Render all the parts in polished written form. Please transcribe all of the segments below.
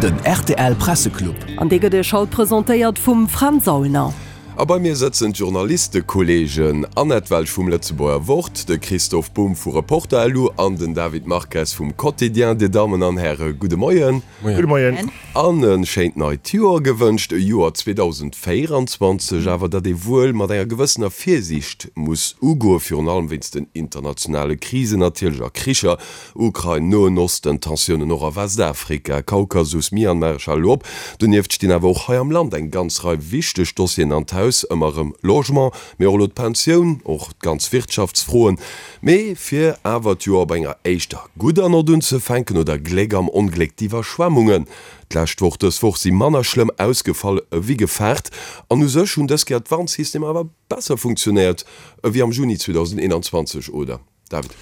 Den rtl Presseclub. An dee gëtt Iech haut presentéiert vum Fränz Aulner. A bei mir sëtzen d'Journalistekolleegen Annette Welsch vum Lëtzebuerger Wort, de Christoph Bumb vu Reporter.lu an den David Marques vum Quotidien. Dir Dammen an Häre, gudde Moien. Gudde Moien. An e schéint neit Joer gewënscht. E Joer 2024 awer, dat ee wuel mat enger gewëssener Virsiicht muss ugoen, virun allem wéinst den internationale Krisen natierlech a Kricher, Ukrain, Noen Osten, Tensiounen och a Westafrika, Kaukasus, Myanmar, ech hale lo op. Donieft stinn awer och hei am Land eng ganz Rei wichteg Dossieren an d'Haus, ëmmer erëm Logement, mee och elo d'Pensioun, och d'ganz Wirtschaftsfroen. Mee fir awer d'Joer op enger éischter gudder Nott unzefänken, oder Gléck am Ongléck, d'Iwwerschwemmungen d'lescht Woch, dës Woch si manner schlëmm ausgefall ewéi gefaart. An u sech hunn dës Kéier d'Warnsystemer awer besser funktionéiert ewéi am Juni 2021, oder? David.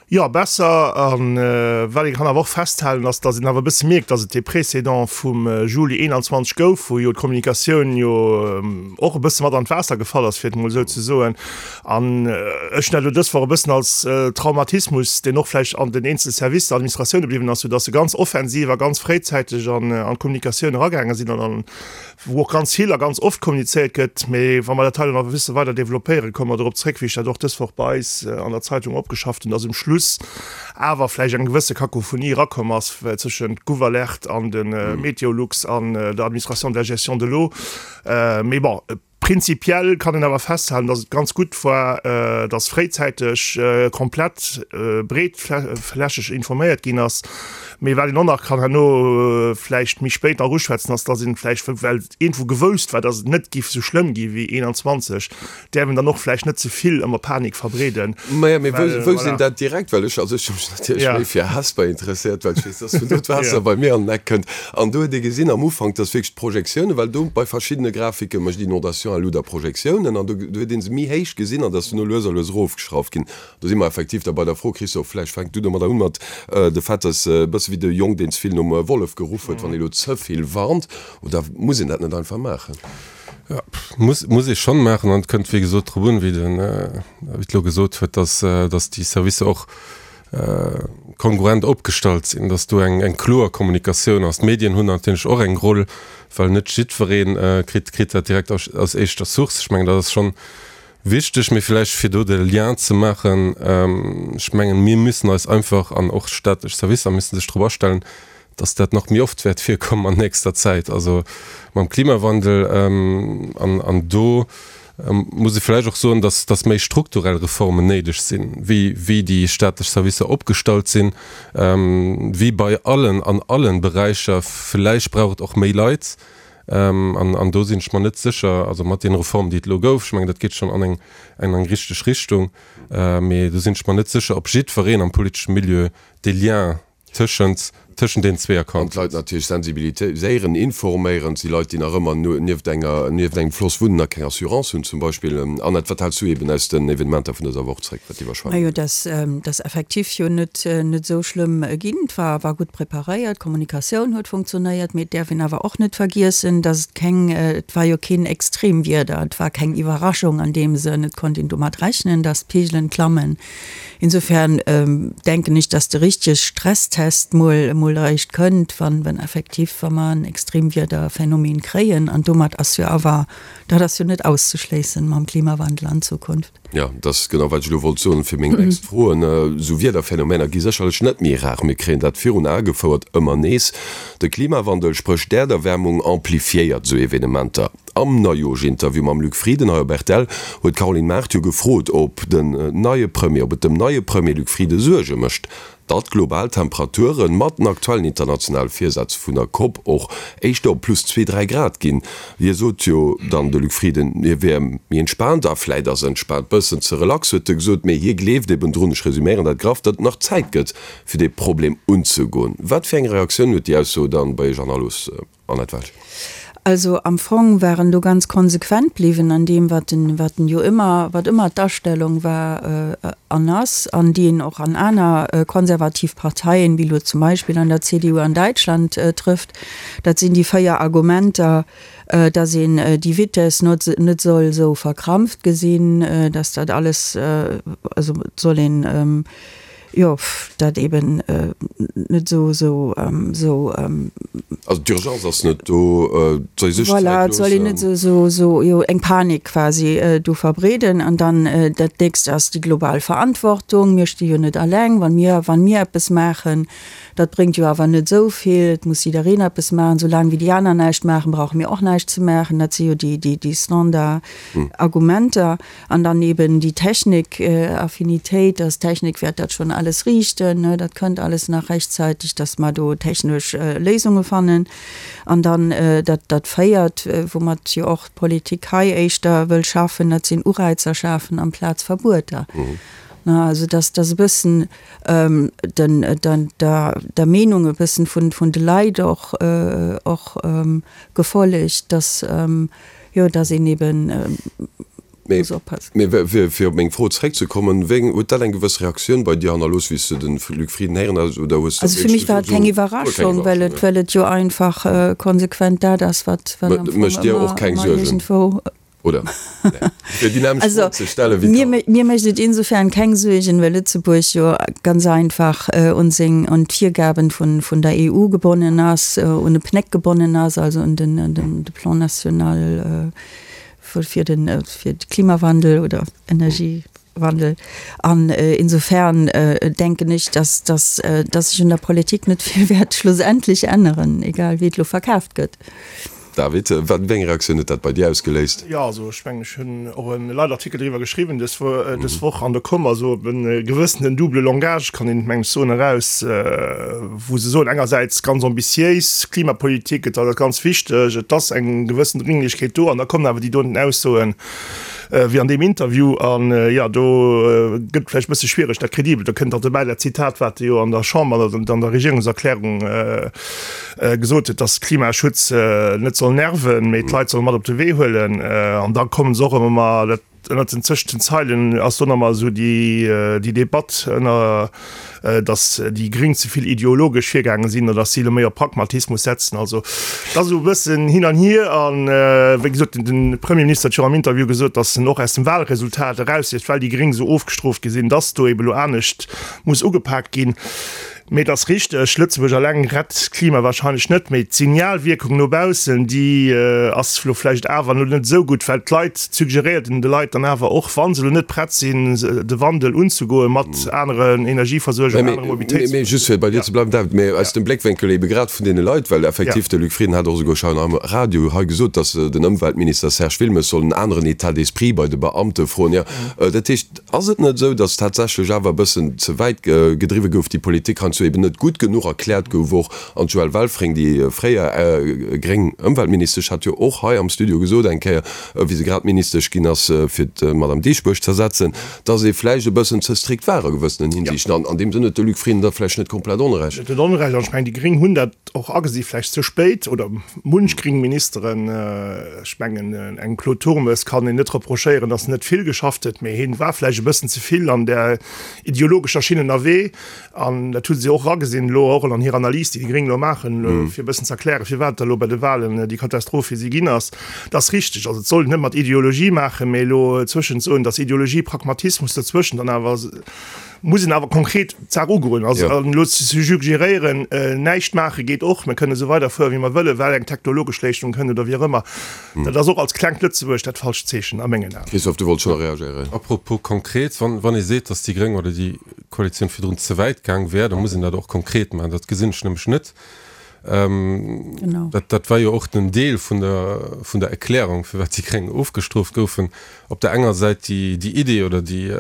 Jo, besser. A wat ee kann awer och festhalen, ass, datt een awer e bësse mierkt, datt et dee Précédent vum Juli 21 gouf, wou jo d'Kommunikatioun jo och e bësse mat an d'Waasser gefall ass, fir et emol esou ze soen. An ech hunn dat elo dës Woch e bëssen als Traumatismus, deen och vläicht an den eenzele Servicer, Administratioune bliwwen ass, soudatt se ganz offensiv a ganz fréizäiteg an d'Kommunikatioun eragaange sinn an an wou och ganz vill a ganz oft kommunizéiert gëtt, mee wa mer dat hei nach e bësse weider développéieren, komme mer dorop zréck, wéi ech dat och dës Woch bei eis an der Zeitung opgeschafft hunn, dass um Schluss awer vläicht eng gewësse Kakophonie erakomm ass tëschent Gouvalert an de Meteolux an der Administration de la gestion de l'eau. Mee bon, prinzipiell kann een awer festhalen, dass et ganz gutt war, dass fréizäiteg komplett breetflächeg informéiert ginn ass. Mee wat een och nach kann herno vläicht méi spéit nach uschwätzen, ass, dass een vläicht, well iergendwou gewousst war, dass et net giff esou schlëmm gi wéi 21, däerf een dann och vläicht net ze vill ëmmer Panik verbreeden. Maja, mee wou, wou sinn dat direkt? Well ech, also ech hu mech natierlech méi fir Hesper interesséiert, well ech weess, dass vun do d'Waasser bei mir an den Eck kënnt. An do huet ee gesinn am Ufank, dass wierklech d'Projektiounen, well do bei verschiddene Grafike mécht Inondation à luder Projektiounen, an do huet ee se méi héich gesinn an dass duerno lues a lues erofgeschrauft ginn. Do si mer effektiv da bei der Fro, Christophe, vläicht fänk du domadder un, mat de Fait, dass e bësse wéi de Jong, deen ze vill nom Wollef geruff huet, wann ee lo ze vill warnt, oder muss een dat net einfach maachen? Jo, muss, muss ee schonn maachen. An et kënnt, wéi gesot, drop un, wéi den David elo gesot huet, dass, dass déi Servicer och kongruent opgestallt sinn, dass do eng, eng kloer Kommunikatioun ass. D'Medien hunn natierlech och eng Roll, well net jiddweree kritt, kritt dat direkt aus, aus éischter Source. Ech mengen, dat ass schonn Wichteg, mee vläicht fir do de Lien ze maachen, ech mengen, mir müssen eis einfach, an och staatlech Servicer müssen sech drop astellen, dass dat nach méi oft wäert virkommen an nächster Zäit, also mam Klimawandel. An do muss ee vläicht och soen, dass, dass méi strukturell Reformen néideg sinn, wéi, wéi déi staatlech Servicer opgestallt sinn, wéi bei allen, an allen Beräicher. Vläicht brauch et och méi Leit. An do sinn ech mer net sécher, also mat deene Reformen, déi et elo gouf, ech mengen, dat geet schonn an eng, an eng richteg Richtung, mee do sinn ech mer net sécher, ob jiddwereen am politesche Milieu dee Lien tëschent, tëschent deenen zwee An erkannt d'Leit huet. natierlech sensibiliséieren, informéieren. Et si Leit, déi nach ëmmer nieft enger, nieft engem Floss wunnen a keng Assurance hunn zum Beispill. Annette, wat häls du eben aus den Evenementer vun dëser Woch zréck, wat d'Iwwerschwemmung Majo, dass, dass effektiv jo net, net esou schlëmm ginn. Et war, war gutt preparéiert, d'Kommunikatioun huet funktionéiert. Mee et däerf een awer och net vergiessen, dass et keng, et war jo keen Extremwieder, et war keng Iwwerraschung an deem Sënn. Et konnt een domat rechnen, dass d'Peegelen klammen. Insofern denken ech, dass de richtege Stresstest mol, mol eréischt kënnt, wann, wann effektiv, wa mer en Extremwiederphänomen kréien. An domat ass jo awer, dat ass jo net auszeschléissen mam Klimawandel an Zukunft. Jo, dat ass genau, wat ech elo wollt soen fir meng nächst Froen. Esou Wiederphänomener gi sécherlech net méi rar. Mir kréien dat virun Ae gefouert, ëmmer nees. De Klimawandel, spréch d'Äerderwärmung, amplifiéiert esou Evenementer. Am Neijooschinterview mam Luc Frieden hei op rtl huet d'Caroline Mart jo gefrot, ob den neie Premier, ob et dem neie Premier Luc Frieden Suerge mécht, Datt global Temperature mat den aktuellen internationale Virsätz vun der Cop och éischter op plus zwee, dräi Grad ginn. Hie sot jo dann, de Luc Frieden, hie wär méi entspaant, a vläit ass entspaant bëssen ze relax, huet e gesot, mee hie gleeft eben drun, ech resuméieren dat graff, datt et nach Zäit gëtt, fir dee Problem unzegoen. Wat fir eng Reaktioun huet déi Ausso dann bei Iech hannerlooss? Annette Welsch. Also am Fong war en do ganz konsequent bliwwen an deem, wat en, wat en jo ëmmer, wat ëmmer d'Astellung war an ass, an déi een och an aner konservativ Parteien, wéi elo zum Beispill an der CDU an Däitschland trëfft. Dat sinn déi 4 Argumenter, dass een déi Vitess not net soll esou verkrampft gesinn, dass dat alles, also et soll een. Jo, dat eben net esou, esou, esou. Also d'Urgence ass net do, et soll ee sech Zäit loossen. Voilà, et soll een net esou, esou, esou, jo, eng Panik quasi do verbreeden. An dann dat nächst ass déi global Verantwortung. Mir sti jo net alleng, wa mir, wa mir eppes maachen, dat bréngt jo awer net esou vill. Et muss jiddereen eppes maachen. Soulaang wéi déi aner näischt maachen, brauche mir och näischt ze maachen. Dat si jo déi, déi, déi Standard-Argumenter. An dann eben déi Technik-Affinitéit, dass d'Technik wäert dat schonn alles riichten, ne, dat kënnt alles nach rechtzeitig, dass mer do technesch Léisunge fannen. An dann dat, dat Véiert, woumat jo och d'Politik hei éischter wëll schaffen, dat sinn Ureizer schafen amplaz Verbueter. Ne, also dass, dass e bëssen den, den, der, der Meenung e bëssen vun, vun de Leit och, och gefollegt, dass, Jo, dass een eben muss oppassen. Mee fir op meng Fro zeréckzekommen, wéi huet dat eng gewëss Reaktioun bei dir hannerlooss, wéi s de de Luc Frieden héieren hues, oder hues de Also fir mech war et keng Iwwerraschung, well et, well et jo einfach konsequent dat ass, wat, wat am Fong Mécht dir och keng ëmmer Suergen, iergendwou. oder? Fir déi nämmlecht Also Fro ze stellen, wéi mir, mir mécht et insofern keng Suergen, well Lëtzebuerg jo ganz einfach un seng, un d'Virgaben vun, vun der EU gebonnen ass, un de PNEC gebonnen ass, also un den, den, de Plan national fir den, fir de Klimawandel oder Energiewandel. An insofern denken ech, dass, dass, dass sech un der Politik net vill wäert schlussendlech änneren, egal wéi et elo verkaaft gëtt. David, wat, wéi eng Reaktioun huet dat bei dir ausgeléist? Jo, also ech mengen, ech hunn och e Leitartikel driwwer geschriwwen dës dës Woch an do koum also e gewëssenen double langage, kann een meng ech soen, eraus, wou se soen engersäits ganz ambitiéis Klimapolitik, et ass ganz wichteg, et ass eng gewëssen Dringlichkeet do, an da kommen awer déi doten Aussoen wéi an deem Interview an jo, do gëtt et vläicht e bësse schwiereg, dat kredibel, do kënnt och dobäi dat Zitat, wat e jo an der Chamber an der Regierungserklärung gesot huet, dass Klimaschutz net soll nerven, mee d'Leit solle mat op de Wee huelen. An da kommen se och ëmmer mar, dat ënnert den, zwëschent den Zeilen ass do nach emmer esou déi, déi Debatt ënner, dass déi Gréng ze vill ideologesch virgaange sinn oder dass si elo méi op Pragmatismus setzen. Also et ass esou e bëssen hin an hier. A wéi gesot, den Premierminister huet jo am Interview gesot, dass en och aus dem Wahlresultat erausliest, well déi Gréng esou ofgestrooft gi sinn, dass do ebe lo anescht muss ugepaakt ginn. Mee et ass richteg, Lëtzebuerg alleng rett d'Klima wahrscheinlech net, mee d'Signalwierkung no baussen, déi ass elo vläicht awer elo net esou gutt, well d'Leit, suggeréiert een de Leit dann awer och, wa se elo net prett sinn, de Wandel unzegoen mat aneren Energieversuerger, anere Mobilitéits. Mee just fir bei dir ze bleiwen, David, mee aus dem Bléckwénkel ebe grad vun deene Leit, well effektiv de Luc Frieden hat och esouguer schonn am Radio hei gesot, datt den Ëmweltminister Serge Wilmes soll en aneren État d'esprit bei de Beamte froen. Jo, dat heescht, Ass et net esou, datt tatsächlech awer e bëssen ze wäit gedriwwe gouf, déi Politik heiansdo eben net gutt genuch erkläert gouf och? An d'Joëlle Welfring, déi fréier gréng Ëmweltministesch, hat jo och hei am Studio gesot eng Kéier, wéi se grad Ministesch ginn ass, fir d'Madame Dieschbourg z'ersetzen, datt ee vläicht e bëssen ze strikt war a gewëssenen Hinsiichten. An an deem Sënn huet de Luc Frieden da vläicht net komplett Onrecht. Net Onrecht. An ech mengen, déi Gréng hunn dat och agesi, vläicht ze spéit, oder munch gréng Ministeren. Ech mengen, engem Claude Turmes kann een net reprochéieren, datt en net vill geschafft huet, mee hien war vläicht e bëssen ze vill an där ideologescher Schinn ënnerwee. An dat hu se och eragesinn elo, och an hirer Analys, déi déi Gréng elo maachen, fir e bëssen ze erklären, firwat da elo bei de Wahlen déi Katastroph fir si ginn ass. Dat ass richteg. Also et soll een net mat Ideologie maachen, mee elo zwëschent soen, datt Ideologie, Pragmatismus dozwëschen dann awer, muss een awer konkret d'Saach ugoen. Also elo ze suggeréieren, näischt maache geet och, mir kënnen esou weiderfueren, wéi mer wëllen, well eng technologesch Léistung kënnt oder wéi och ëmmer, dat ass och als klengt Lëtzebuerg dat falscht Zeechen a mengen Aen. Christophe, du wollts scho nach reagéieren. Apropos konkret, wann ee seet, datt déi Gréng oder déi Koalitioun virdrun ze wäit gaang wär, da muss een dat och konkret maachen. Dat gesinn ech nämlech net. Dat, dat war jo och den Deel vun der, vun der Erklärung, firwat déi Gréng ofgestrooft goufen. Op der enger Säit déi, déi Idee oder déi,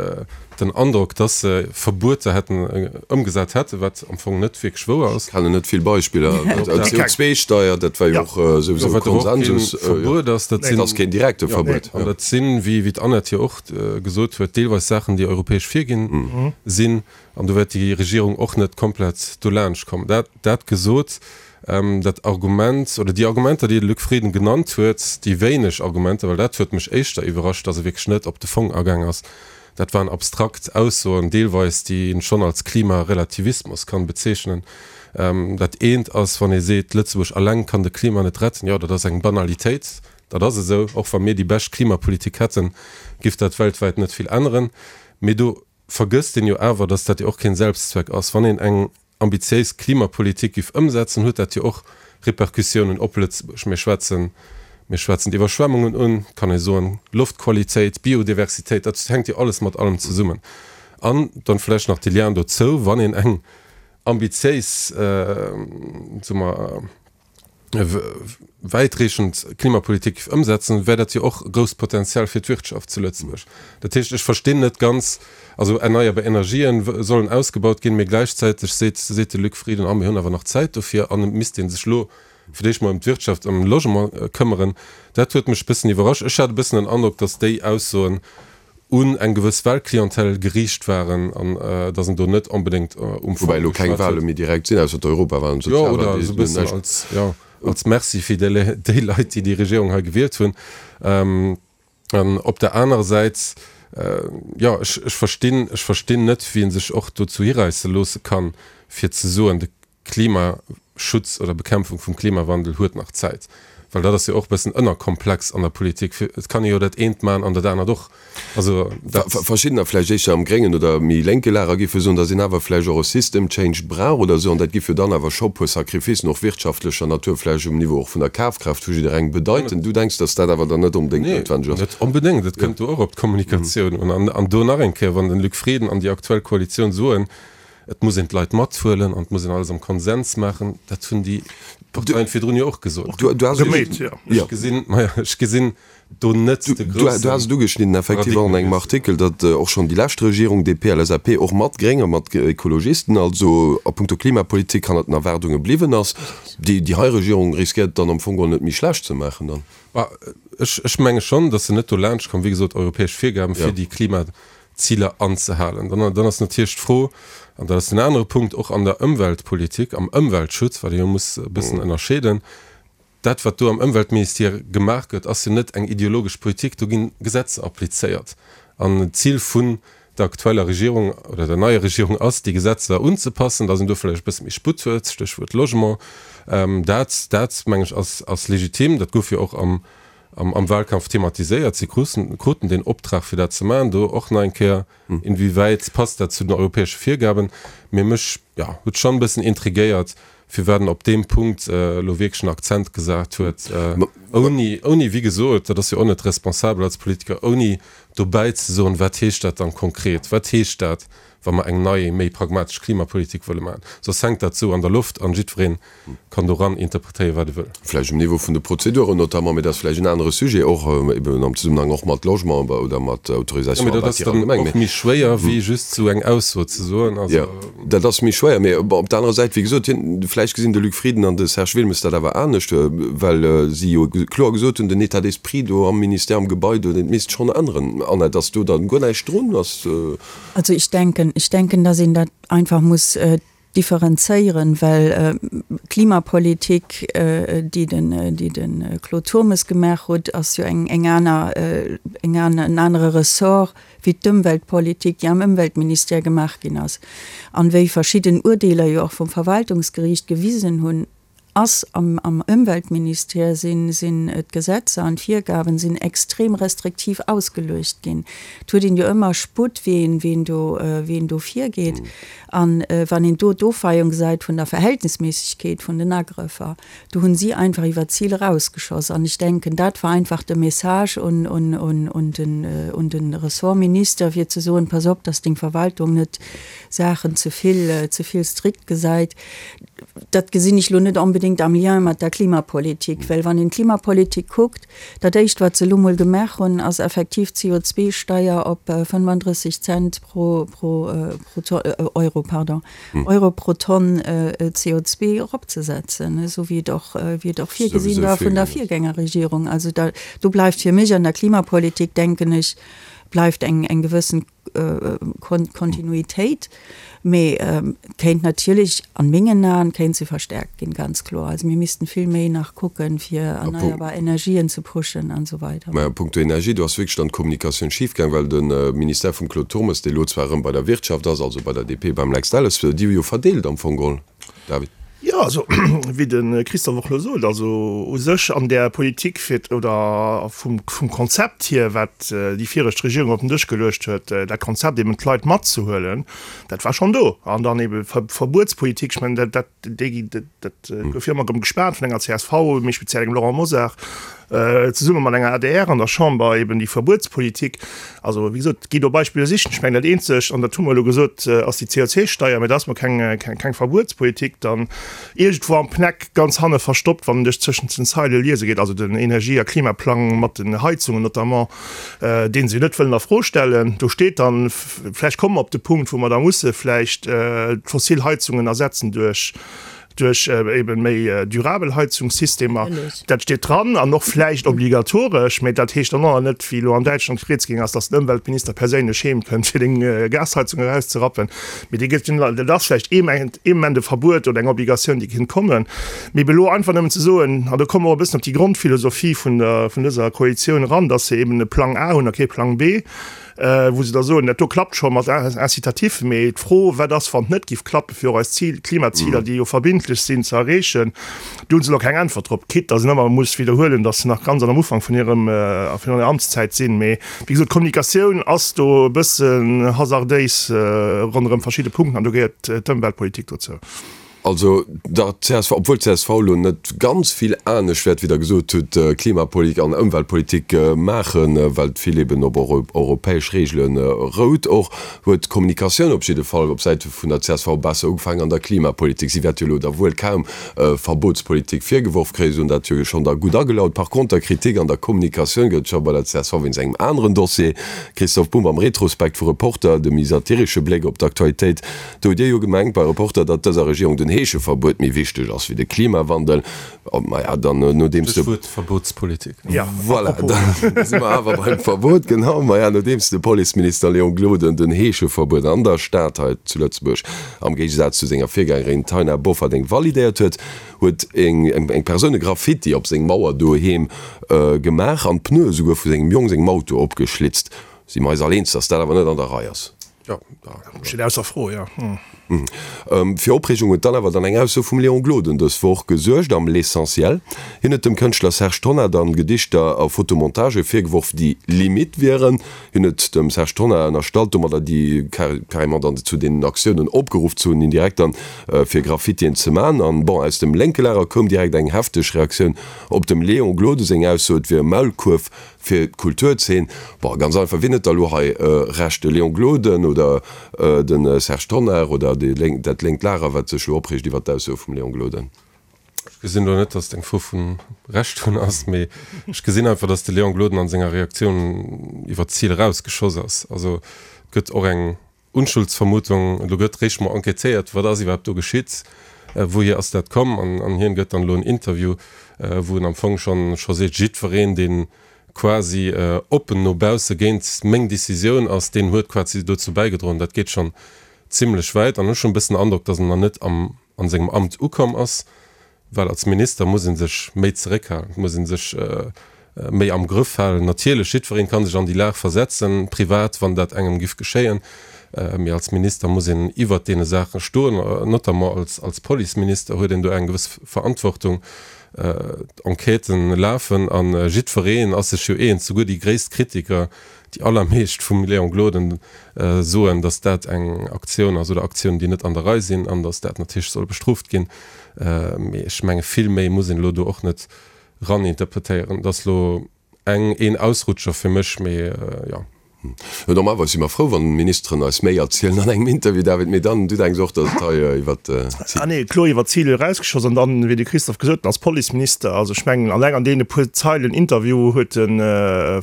den Androck, dass se Verbueter hätten ëmgesat hätten, wat am Fong net wierklech wouer ass. Ech kennen net vill Beispiller. D'CO2-Steier, dat war jo och souwisou e Konsensus. Wat awer och kee Verbuet ass, dat sinn. Dat ass keen direkte Verbuet. An dat sinn, wéi, wéi d'Annette jo och gesot huet, deelweis Saachen, déi europäesch virginn sinn. An do wäert déi Regierung och net komplett dolaanscht kommen. Dat, dat gesot, dat Argument oder déi Argumenter, déi de Luc Frieden genannt huet, déi wéineg Argumenter, well dat huet mech éischter iwwerrascht, datt e wierklech net op de Fong agaang ass, dat waren abstrakt Aussoen deelweis, déi een schonn als Klimarelativismus kann bezeechnen. Dat eent ass, wann ee seet, Lëtzebuerg alleng kann de Klima net retten, jo, dat ass eng Banalitéit, dat ass esou. Och wa mir déi bescht Klimapolitik hätten, giff dat weltwäit net vill änneren. Mee do. vergësst een jo awer, datt dat jo och keen Selbstzweck ass. Wann een eng ambitiéis Klimapolitik giff ëmsetzen, huet dat jo och Repercussiounen op Lëtzebuerg. Mir schwätzen, mir schwätzen d'Iwwerschwemmungen un, kann ee soen, Loftqualitéit, Biodiversitéit, dat hänkt jo alles mat allem zesummen. An dann vläicht nach de Lien dozou, wann een eng ambitiéis, soe mer, wäitreechend Klimapolitik géif ëmsetzen, wär dat jo och e grousst Potenzial fir d'Wirtschaft zu Lëtzebuerg. Dat heescht, ech verstinn net ganz, also erneierbar Energien sollen ausgebaut ginn, mee gläichzäiteg seet seet de Luc Frieden, ah mir hunn awer nach Zäit dofir an et misst ee sech elo fir d'éischt mol ëm d'Wirtschaft, ëm Logement këmmeren. Dat huet mech e bëssen iwwerrascht. Ech hat e bëssen den Androck, datt déi Aussoen un eng gewëss Wahlclientèle geriicht waren an datt en do net onbedéngt um Fong Woubäi elo keng geschwat Wahle huet. méi direkt sinn, ausser d'Europawahlen, Jo, oder d'Sozialwahlen, esou e déi bëssen näischt. als, jo, als Merci fir déi déi Leit, déi déi Regierung hei gewielt hunn. An op der anerer Säit, jo, ech, ech verstinn, ech verstinn net, wien sech och dozou hiräisse loosse kann, fir ze soen, de Klimaschutz oder Bekämpfung vum Klimawandel huet nach Zäit. Well dat ass jo och e bëssen ënnerkomplex an der Politik. Et kann ee jo dat eent maachen an dat anert och. Also dat. Verschiddener, vläicht éischter am gréngen oder méi lénke Lager, géife soen, datt een awer vläicht och e System change brauch oder esou. An dat giff jo dann awer scho puer Sacrificen, och wirtschaftlecher Natur, vläicht um Niveau och vun der Kafkraaft vu jidderengem bedeiten. Du denks, datt dat awer dann net onbedéngt noutwenneg ass? Nee, net onbedéngt. Et kënnt do och op d'Kommunikatioun un. An do nach eng Kéier, wann den Luc Frieden an déi aktuell Koalitioun soen, Et muss een d'Leit mathuelen an et muss een alles am Konsens maachen. Dat hunn déi Parteien virdrun jo och gesot. Ech gesinn, maja, ech gesinn do net de grousse. Du has et ugeschnidden effektiv och an engem Artikel, datt och schonn déi lescht Regierung, DP, LSAP, och mat Gréng a mat Ekologisten, also a puncto Klimapolitik hannert den Erwaardunge bliwwen ass. Déi hei Regierung riskéiert et dann am Fong geholl net méi schlecht ze maachen dann. Ech menge schonn, datt se net dolaanscht komm, wéi gesot, europäesch Virgaben fir déi Klima Ziler anzehalen. Dann, dann ass natierlech d'Fro, an dat ass den anere Punkt, och an der Ëmweltpolitik, am Ëmweltschutz, wat ee jo muss e bëssen ënnerscheeden, dat wat do am Ëmweltministère gemaach gëtt, ass jo net eng ideologesch Politik, do gi Gesetzer applizéiert. An d'Zil vun der aktueller Regierung oder der neier Regierung ass, déi Gesetzer unzepassen, datt een do vläicht e bësse méi Sputt huet, Stéchwuert Logement. Dat, dat meng ech, ass, ass legitim. Dat gouf jo och am am Wahlkampf thematiséiert. Si kruten deen Optrag fir dat ze maachen. Do och nach eng Kéier, inwiewäit passt dat zu den europäesche Virgaben? Mee mech, jo, huet schonn e bëssen intrigéiert, firwat en op deem Punkt elo wierklech en Akzent gesat huet, ouni, ouni, wéi gesot, dat ass jo och net responsabel als Politiker, ouni dobäi ze soen, wat heescht dat dann konkret, wat heescht dat, wa mer eng nei, méi pragmatesch Klimapolitik wëlle maachen. Soss hänkt dat esou an der Loft an jiddweree kann doran interpretéieren, wat e wëll. Vläicht um Niveau vun de Prozeduren notamment, mee dat ass vläicht en anere Sujet, och eben am Zesummenhang och mat Logement oder mat Autorisation à bâtir allgemeng. Mee dat ass dann och méi schwéier, wéi just esou eng Ausso ze soen. Also. Jo, dat ass méi schwéier. Mee bon, op der anerer Säit, wéi gesot, hien, vläicht gesinn de Luc Frieden an de Serge Wilmes dat awer anescht, well si jo kloer gesot hunn, den État d'esprit do am Ministère, am Gebai do, dat misst schonn änneren. Annette, ass do dann guer näischt drun? Ass. Also ich denken, ich denken, dass een dat einfach muss differenzéieren, well d'Klimapolitik, déi den, déi de Claude Turmes gemaach huet, ass jo eng, eng aner, eng aner, en anere Ressort wéi d'Ëmweltpolitik, déi am Ëmweltministère gemaach ginn ass. An wéi verschidden Urdeeler jo och vum Verwaltungsgeriicht gewisen hunn, ass am am Ëmweltministère sinn sinn d'Gesetzer an d'Virgaben sinn extrem restriktiv ausgeluecht ginn. Et huet een jo ëmmer Sputt wéi een wéi een do wéi een do virgeet. An wann een do d'Ofweiung gesäit vun der Verhältnisméissegkeet vun den Agrëffer, do hunn si einfach iwwer d'Zil erausgeschoss. An ech denken dat war einfach de Message un un un un den un den Ressortminister fir ze soen, pass op, dass deng Verwaltung net Saachen ze vill ze vill strikt gesäit. Dat gesinn ech elo net onbedéngt am Lien mat der Klimapolitik, well wann een d'Klimapolitik kuckt, dat Éischt, wat se elo mol gemaach hunn, ass effektiv d'CO2-Steier op 35 Cent pro, pro, pro Euro, pardon, Euro pro Tonn CO2 eropzesetzen, esou wéi et och, wéi et och virgesinn war vun der Virgängerregierung. Also da, do bleift fir mech an der Klimapolitik, denken ech, bleift eng, eng gewëssen Kontinuitéit, mee kéint natierlech an mengen Aen kéint se verstärkt ginn, ganz kloer. Also mir missten vill méi nach kucken, fir erneierbar Energien ze pushen an esou weider. Mä a puncto Energie, do ass wierklech dann d'Kommunikatioun schif gaang, well de Ministère vum Claude Turmes, dee lo zwar erëm bei der Wirtschaft ass, also bei der DP, beim Lex Delles, déi hu jo verdeelt am Fong geholl, David. Jo, also wéi de Christophe och elo sot, also u sech an där Politik fir oder vum Konzept hier, wat déi viregt Regierung op den Dësch geluecht huet, dat Konzept eben d'Leit matzehuelen, dat war schonn do. An dann ebe Verbuetspolitik, ech mengen dat, dat, déi, dat gouf jo ëmmer erëm gespaant vun enger csv, méi speziell engem Laurent Mosar, zesumme mat enger adr an der Chamber eben déi Verbuetspolitik. Also wéi gesot, gi do Beispiller sichen. Ech mengen dat eenzegt, an dat hu mer elo gesot, ass déi CO2-Steier, mä dat ass mol keng, keng Verbuetspolitik. Dann iergendwou am PNEC ganz hanne verstoppt, wann een duerch zwëschent den Zeile liese geet, also den Energie a Klimaplang mat den Heizungen notamment, dee se jo net wëllen a Fro stellen, do steet dann, vläicht komme mer op de Punkt, wou mer da musse vläicht d'fossil Heizungen ersetzen duerch duerch eben méi durabel Heizungssystemer. Dat steet dran an och vläicht obligatoresch, mä dat heescht dann och nach net, wéi elo an Däitschland rieds gaang ass, dass den Ëmweltminister perséinlech heem kënnt, fir deng Gasheizung erauszerappen. Mee dee gëtt, dat ass vläicht ee Moment, ee Moment e Verbuet oder eng Obligatioun, déi kéint kommen. Mee ebe elo einfach nëmmen ze soen, an do komme mer och e bëssen op déi Grondphilosophie vun der, vun dëser Koalitioun eran, dass se eben e Plang A hunn a kee Plang B, wou se da soen, dat do klappt scho mat Incitatif, mee d'Fro, wat ass, wann et net géif klappen, fir och eis Zil, Klimaziler, déi jo verbindlech sinn, ze erreechen, do hu se elo keng Äntwert drop, quitte datt een ëmmer muss widderhuelen, datt se nach ganz am Ufank vun hirem, vun hirer Amtszäit sinn. Mee wéi gesot, d'Kommunikatioun ass do e bëssen hasardéis ronderëm verschidde Punkten an do gehéiert d'Ëmweltpolitik dozou. Also der csv, obwuel d'CSV elo net ganz vill anescht wäert, wéi Der gesot hutt, Klimapolitik an Ëmweltpolitik maachen, well et vill eben op europäesch Reegele rout och, huet d'Kommunikatioun op jidde Fall op Säite vun der csv besser ugefaangen an der Klimapolitik. Si wäert jo elo da wuel kaum Verbotspolitik virgeworf kréien, si hunn dat jo schonn da gutt agelaut. Par konter, Kritik an der Kommunikatioun gëtt et scho bei der csv wéinst engem aneren Dossier. Christophe Bumb am Retrospekt vu Reporter, de méi satiresche Bléck op d'Aktualitéit. Do hutt Dir jo gemengt bei Reporter, datt dëser Regierung den Heescheverbuet méi wichteg ass wéi de Klimawandel. Maja, dann nodeems de. Stéchwuert Verbotspolitik. Voilà, da si mer awer beim Verbot, genau. Maja, nodeems de Policeminister Léon Gloden den Heescheverbuet an der Stad hei zu Lëtzebuerg am Géigesaz zu senger Virgängerin Taina Bofferding validéiert huet, huet eng Persoun e Graffiti op seng Mauer doheem gemaach an d'Pneue souguer vu sengem Jong sengem Auto opgeschlitzt. Si mer eis all eens, datt dat awer net an der Rei ass? Jo, steet ausser Fro, jo. Fir Opreegung huet dann awer dann eng Ausso vum Léon Gloden dës Woch gesuergt am L'Essentiel. Hien huet dem Kënschtler Serge Tonnar dann Gedichter a Fotomontagë virgeworf, déi limite wieren. Hien huet dem Serge Tonnar ënnerstallt, domadder déi carrément dann zu deenen Aktiounen opgeruff ze hunn, indirekt dann, fir Graffitien ze man. An bon, aus dem lénke Lager koum direkt eng hefteg Reaktioun op dem Léon Gloden seng Ausso, et wier e Maulkuerf Fir d'Kulturzeen, bon, ganz einfach, wien huet da elo hei Recht, de Léon Gloden oder de Serge Tonnar oder déi lénk, dat lénkt Lager, wat sech elo opreegt iwwert d'Aussoe vum Léon Gloden? Ech gesinn elo net, datt et eng Fro vu Recht hunn ass, mee ech gesinn einfach, datt de Léon Gloden an senger Reaktioun iwwer d'Zil erausgeschoss ass. Also et gëtt och eng Unschuldsvermutung, elo gëtt réischt mol enquêtéiert, wat ass iwwerhaapt do geschitt, wouhier ass dat komm, an hien gëtt dann elo en Interview, wou en am Fong schonn scho seet, jiddwereen, dee quasi oppen no bausse géint meng Decisioun ass, deen huet quasi dozou bäigedroen. Dat geet schonn zimlech wäit an ech hunn e bëssen den Androck, datt en nach net am an sengem Amt ukomm ass. Well als Minister muss ee sech méi zeréckhalen, et muss ee sech méi am Grëff halen. Natierlech, jiddwereen ka sech an déi Lag versetzen, privat, wann dat engem giff geschéien, mee als Minister muss een iwwert deene Saache stoen. Notamment als als Policeminister huet een do eng gewëss Verantwortung. D'Enquêten lafen a jiddwereen ass sech jo eens, souguer déi gréisst Kritiker, Déi allermeescht vum Léon Gloden soen, datt dat eng Aktioun ass oder Aktiounen, déi net an der Rei sinn an datt dat natierlech soll bestrooft ginn. Mee ech menge vill méi muss een elo do och net raninterpretéieren. Et ass elo eng, een Ausrutscher fir mech, mee jo. Normalerweis si mer frou, wann d'Ministeren eis méi erzielen an engem Interview, David, mee dann, du denks och, datt et hei iwwer d'Zil. Ah nee, kloer iwwer d'Zil erausgeschoss. An dann, wéi de Christophe gesot huet, als Policeminister, also ech mengen, alleng an deene puer Zeilen Interview huet e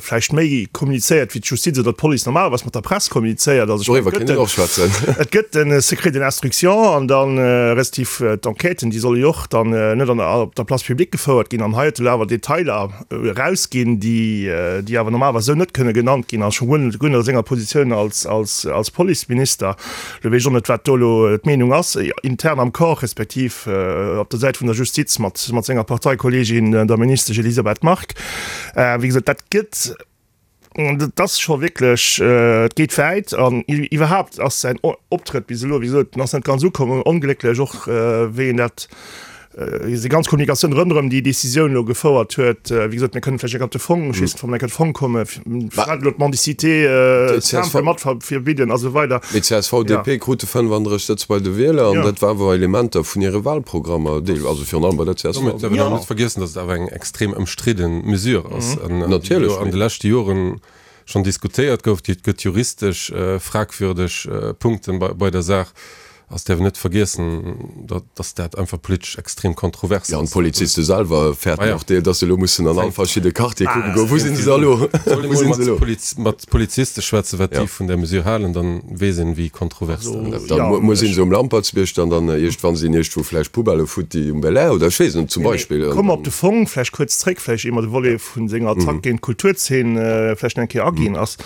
vläicht méi kommunizéiert, wéi d'Justiz oder d'Police normalerweis mat der Press kommunizéiert. Also ech mengen, et gëtt den, et gëtt de Secret de l'instruction an dann, respektiv d'Enquêten, déi solle jo och dann net an der, op der Place publique gefouert ginn. An hei huet e lo awer Detailer erausginn, déi, déi awer normalerweis esou net kënne genannt ginn, a scho guer net, guer net a senger Positioun als, als, als Policeminister. Lo weess ech och net, wat do elo d'Meenung ass, intern am Corps, respektiv op der Säit vun der Justiz mat, mat senger Parteikolleegin, der Ministesch Elisabeth Margue. Wéi gesot, dat gëtt. dat ass scho wierklech, et geet wäit. An iwwerhaapt ass säin Optrëtt bis elo, wéi gesot, en ass net ganz ukomm, onglécklech och wéi en dat, déi ganz Kommunikatioun ronderëm déi Décisioun elo gefouert huet. Wéi gesot, mir kënnen vläicht eng Kéier op de Fong, ech weess net, wa mer eng Kéier op de Fong kommen, firwat elo d'Mendicité simple mat verbidden a sou weider. Mee csv, DP krute 35 Sëtz bei de Wieler an dat war awer Elementer vun hire Wahlprogrammer, also virun allem bei der csv. Domat däerf een awer net vergiessen, datt et awer eng extrem ëmstridde Mesure ass an déi jo an de leschte Joren schonn diskutéiert gouf. Et gëtt juristesch fragwürdeg Punkten bei der Saach. Also et däerf een net vergiessen, datt dat einfach politesch extrem kontrovers ass. Jo, an d'Poliziste selwer fäerten och, datt se elo mussen an all verschidde Quartiere kucke goen, wou sinn se da elo? Soll een emol mat Poliziste schwätzen, wat déi vun där Mesure halen, dann weess een, wéi kontrovers dat ass. Da muss een se um Lampertsbierg dann dann iergendwann sinn iergendwou vläicht Poubellë futti um Belair oder ech weess net, zum Beispill. Komme mer op de Fong vläicht kuerz zréck, vläicht ier mer de Volet vu senger Attack géint d'Kulturzeen vläicht nach eng Kéier aginn ass.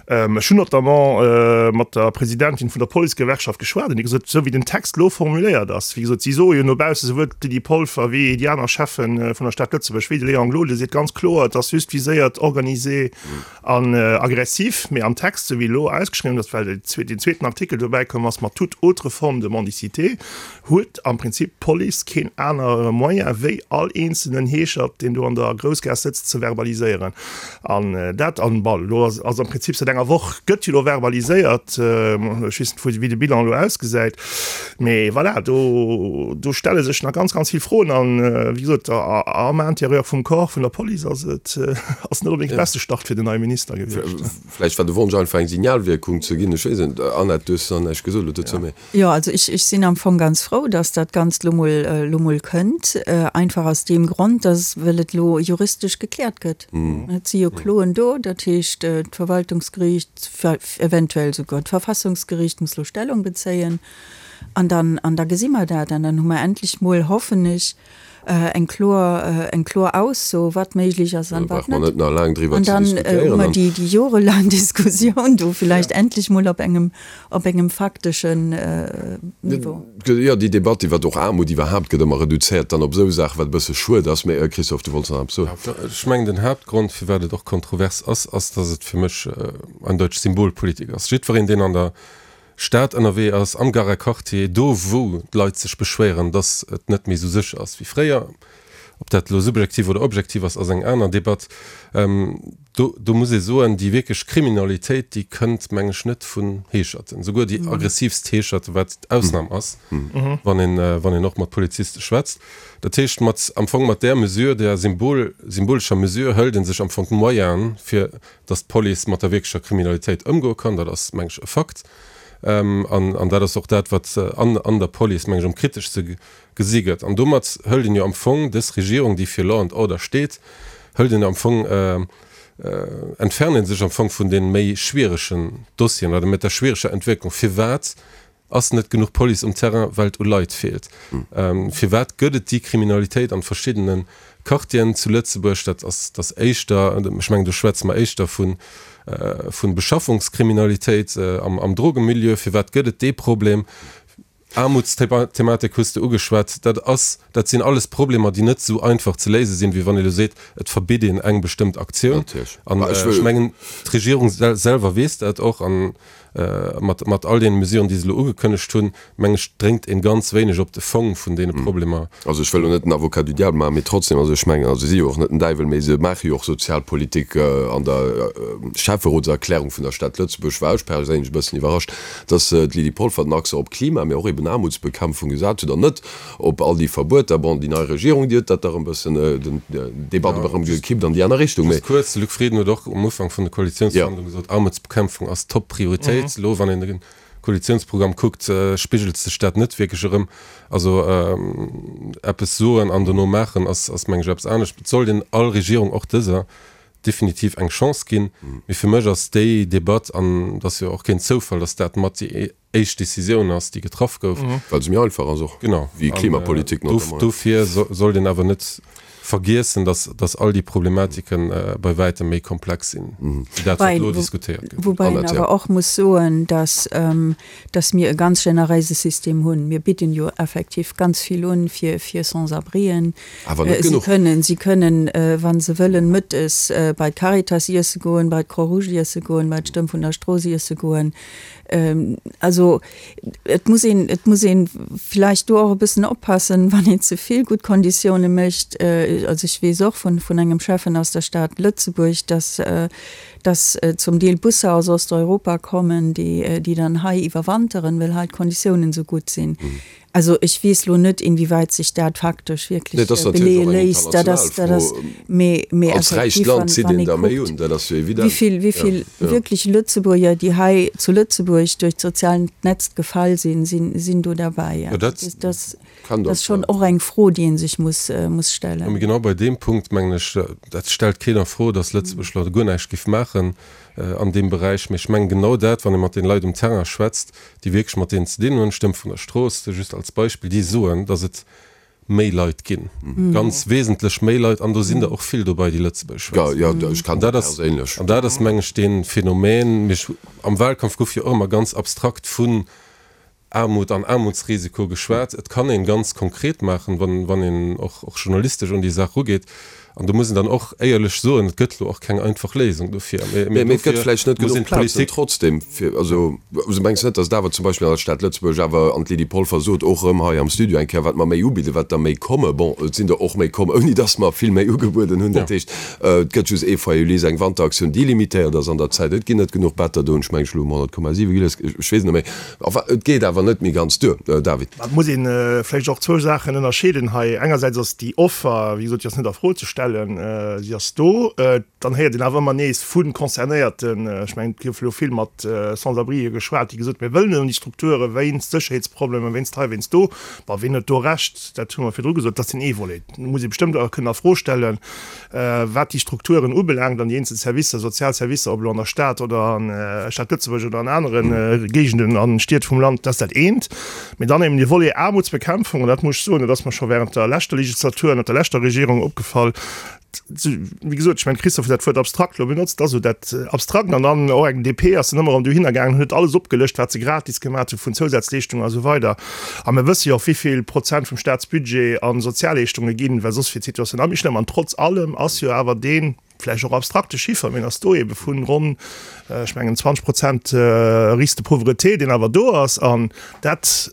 Ech hunn notamment mat der Presidentin vun der Policegewerkschaft geschwat an déi gesot, esou wéi den Text elo formuléiert ass, wéi gesot, si soe jo no bausse, souwuel d'Lydie Polfer wéi déi aner Cheffe vun der Stad Lëtzebuerg, wéi de Léon Gloden seet ganz kloer, et ass just viséiert organisé an aggressif. Mee am Text, esou wéi elo ausgeschriwwen ass, well deen zweeten Artikel dobäi komm ass mat toute autre forme de mendicité, huet am Prinzip d'Police keen anere Moyen wéi all eenzelnen Heeschert, deen do an der Groussgaass sëtzt, ze verbaliséieren. An dat, an bon, elo ass am Prinzip säit enger Woch gëtt jo elo verbaliséiert, ech weess net wéi de Bilan elo ausgesäit, mee voilà, do do stelle sech nach ganz, ganz vill Froen. An wéi gesot, am Intérieur vum Corps vun der Police ass et ass net onbedéngt de beste Start fir den neie Minister gewiescht. Vläicht war de Wonsch einfach eng Signalwierkung ze ginn, ech weess et net. Annette, du hues nach näischt gesot elo dozou, mee. Jo, also ech, ech sinn am Fong ganz frou, dass dat Ganzt lo mol, lo mol kënnt. Einfach aus deem Grond, dass, well et lo juristesch gekläert gëtt. Et si jo Kloen do, dat heescht, d'Verwaltungsgeriicht, eventuell souguer d'Verfassungsgeriicht muss lo Stellung bezéien. An dann, an da gesi mer dat. An dann hu mer endlech mol, hoffen ech, eng kloer, eng kloer Ausso, wat méiglech ass an wat net. net nach laang driwwer ze diskutéieren. An dann hu mer déi, déi jorelaang Diskussioun do villäicht endlech mol op engem, op engem fakteschen Niveau. Jo, déi Debatt iwwert och Aarmut iwwerhaapt gëtt ëmmer reduzéiert dann op esou Saachen, wat e bësse schued ass. Mee Christophe, du wollts nach eppes soen. Ech mengen, den Haaptgrond, firwat et och kontrovers ass, ass, datt et fir mech eindeutig Symbolpolitik ass. Jiddwereen, deen an der Stad ënnerwee ass, am Garer Quartier, do wou d'Leit sech beschwéieren, dass et net méi esou sécher ass wéi fréier, ob dat elo subjektiv oder objektiv ass, ass eng aner Debatt, do, do muss ee soen, déi wierklech Kriminalitéit, déi kënnt, meng ech, net vun Heescherten, souguer déi aggressivst Heescherten, wat d'Ausnam ass, wann een, wann een och mat Poliziste schwätzt. Dat heescht, mat, am Fong mat där Mesure, där symbol, symbolescher Mesure hëlt ee sech am Fong d'Moyenen, fir dass d'Police mat der wierklecher Kriminalitéit ëmgoe kann, dat ass, meng ech, e Fakt. An, an dat ass och dat, wat an, an der Police, meng ech, am kriteschste gesi gëtt. An domat hëlt een jo am Fong dës Regierung, déi fir Law and Order steet, hëlt een am Fong, entfernt ee sech am Fong vun deene méi schwieregen Dossieren oder mat der schwiereger Entwécklung. Firwat Ass net genuch Police um Terrain, well et u Leit feelt? Firwat gëtt et déi Kriminalitéit an verschiddene Quartieren zu Lëtzebuerg? Dat ass dat éischter, ech mengen do schwätze mer éischter vu vu Beschaffungskriminalitéit am Drogemilieu. Firwat gëtt et dee Problem? Aarmutsthematik hues de ugeschwat. Dat ass, dat sinn alles Problemer, déi net esou einfach ze léise sinn, wéi wann ee elo seet, et verbitt een eng bestëmmt Aktioun. An ech mengen, d'Regierung selwer weess dat och. An Mat, mat all deene Mesuren, déi se elo ugekënnegt hunn, meng ech, dréngt een ganz wéineg op de Fong vun deene Problemer. Also ech wëll elo net den Avocat du diable maachen, mee trotzdem, also ech mengen, also si si jo och net den Däiwel, mee se maache jo och Sozialpolitik. An der Schäfferotserklärung vun der Stad Lëtzebuerg war ech perséinlech e bëssen iwwerrascht, dass d'Lydie Polfer den Accent op Klima, mee och eben Aarmutsbekämpfung gesat huet an net op all déi Verbueter. Bon, déi nei Regierung, déi huet dat da rëm e bëssen, den Debatt erëm gekippt an déi aner Richtung, mee. Just kuerz, De Luc Frieden huet och um Ufank vun de Koalitiounsverhandlunge gesot, Aarmutsbekämpfung ass Top-Prioritéit. Elo, wann een de Koalitiounsprogramm kuckt, spigelt sech dat net wierklech erëm. Also eppes soen an dono maachen ass, ass meng ech, eppes anescht. Et sollt een all Regierung, och dëser, definitiv eng Chance ginn. Mee fir mech ass déi Debatt, an et ass jo och keen Zoufall, datt dat mat déi éischt Decisioun ass, déi getraff gouf. Well se méi einfach ass och wéi Klimapolitik notamment. Dofir sollt een awer net. Vergiessen, dass, dass all déi Problematiken bei wäitem méi komplex sinn, wéi dat, wat elo diskutéiert gëtt. Woubäi een awer och muss soen, dass, dass mir e ganz generéise System hunn. Mir bidden jo effektiv ganz vill un fir, fir Sans-abrien. Awer net genuch. Si kënnen, si kënnen, wa se wëllen, mëttes bei d'Caritas iesse goen, bei d'Croix-Rouge iesse goen, bei d'Stëmm vun der Strooss iesse goen. Also et muss een, et muss een vläicht do och e bëssen oppassen, wann een ze vill gutt Konditioune mécht. Also ech weess och vun, vun engem Schäffen aus der Stad Lëtzebuerg, dass, dass zum Deel Busser aus Osteuropa kommen, déi, déi dann hei iwwerwanteren, well hei d'Konditiounen esou gutt sinn. Also ech weess lo net, inwieweit sech dat faktesch wierklech beleeë léisst. Dat ass, dat ass, mee, mee effektiv, wann, wann ee kuckt, wéi vill, wéi vill wierklech Lëtzebuerger, déi hei zu Lëtzebuerg duerch d'soziaalt Netz gefall sinn, sinn, sinn do derbäi. Dat ass, dat ass schonn och eng Fro, déi ee sech muss, muss stellen. Mee genau bei deem Punkt, mengen ech, dat stellt keen a Fro, datt Lëtzebuerg elo guer näischt géif maachen an deem Beräich. Mee ech mengen genau dat, wann ee mat den Leit um Terrain schwätzt, déi wierklech mat deenen ze dinn hunn, Stëmm vun der Strooss, just als Beispill, déi soen, datt et méi Leit ginn, ganz wesentlech méi Leit, an do sinn der och vill dobei, déi Lëtzebuergesch schwätzen. An dat ass, an dat ass, meng ech, dee Phänomen. Mee am Wahlkampf gouf jo och ëmmer ganz abstrakt vun Aarmut an Aarmutsrisiko geschwat. Et kann een ganz konkret maachen, wann, wann een och, och journalistesch un déi Saach erugeet. An do muss een dann och éierlech soen, et gëtt elo och keng einfach Léisung dofir. Mee et gëtt vläicht net genuch Plazen trotzdem fir, also mengs net, datt et awer zum Beispill an der Stad Lëtzebuerg awer, an d'Lydie Polfer sot och erëm hei am Studio eng Kéier, wat mer méi ubidden, wat der méi komme. Bon, et sinn der och méi komm, ouni datt mer vill méi ugebueden hunn. Dat heescht, et gëtt just ee Foyer Ulysse, eng Wanteraktioun, déi limitéiert ass an der Zäit. Et ginn net genuch Better do hunn ech meng ech elo um 100,7 gelies, ech weess et net méi. Enfin, et geet awer net méi ganz duer, David. Et muss ee vläicht och zwou Saachen ënnerscheeden hei. Engersäits ass déi Offer, wéi gesot, déi ass net a Fro ze stellen, si ass do. Dann héiert een awer ëmmer nees vu Concernéierten, ech mengen, et gouf elo vill mat Sans-abrien geschwat, déi gesot hunn, mir wëllen net an déi Strukture wéinst Sécherheetsproblemen, wéinst hei, wéinst do. Bon, wien huet do Recht? Dat hu mer virdru gesot, dat ass deen ee Volet. Do muss ee bestëmmt och kënnen a Fro stellen, Wat déi Strukturen ubelaangt an déi eenzel Servicer, sozial Servicer, ob elo an der Stad oder an der Stad Lëtzebuerg oder an anere Géigenden a Stied vum Land, dat ass dat eent. Mee dann eben dee Volet Aarmutsbekämpfung, an dat muss ech soen, dat ass mer scho während der leschter Legislatur ënnert der leschter Regierung opgefall, wéi gesot, ech mengen, de Christophe huet dat Wuert abstrakt elo benotzt, dat ass esou dat Abstrakt. An dann och eng DP ass dann ëmmer erëm dohinner gaangen, huet alles opgelëscht, wat se gratis gemaat hu vun Zousazleeschtungen a sou weider. A mir wësse jo och, wéi vill Prozent vum Staatsbudget a Sozialleeschtunge ginn, well soss wier d'Situatioun nach méi schlëmm. An trotz allem ass jo awer dee vläicht och abstrakte Chiffer, mee en ass do, ebe vun ronn, ech mengen, 20 Prozent Risque de pauvreté, deen awer do ass. An dat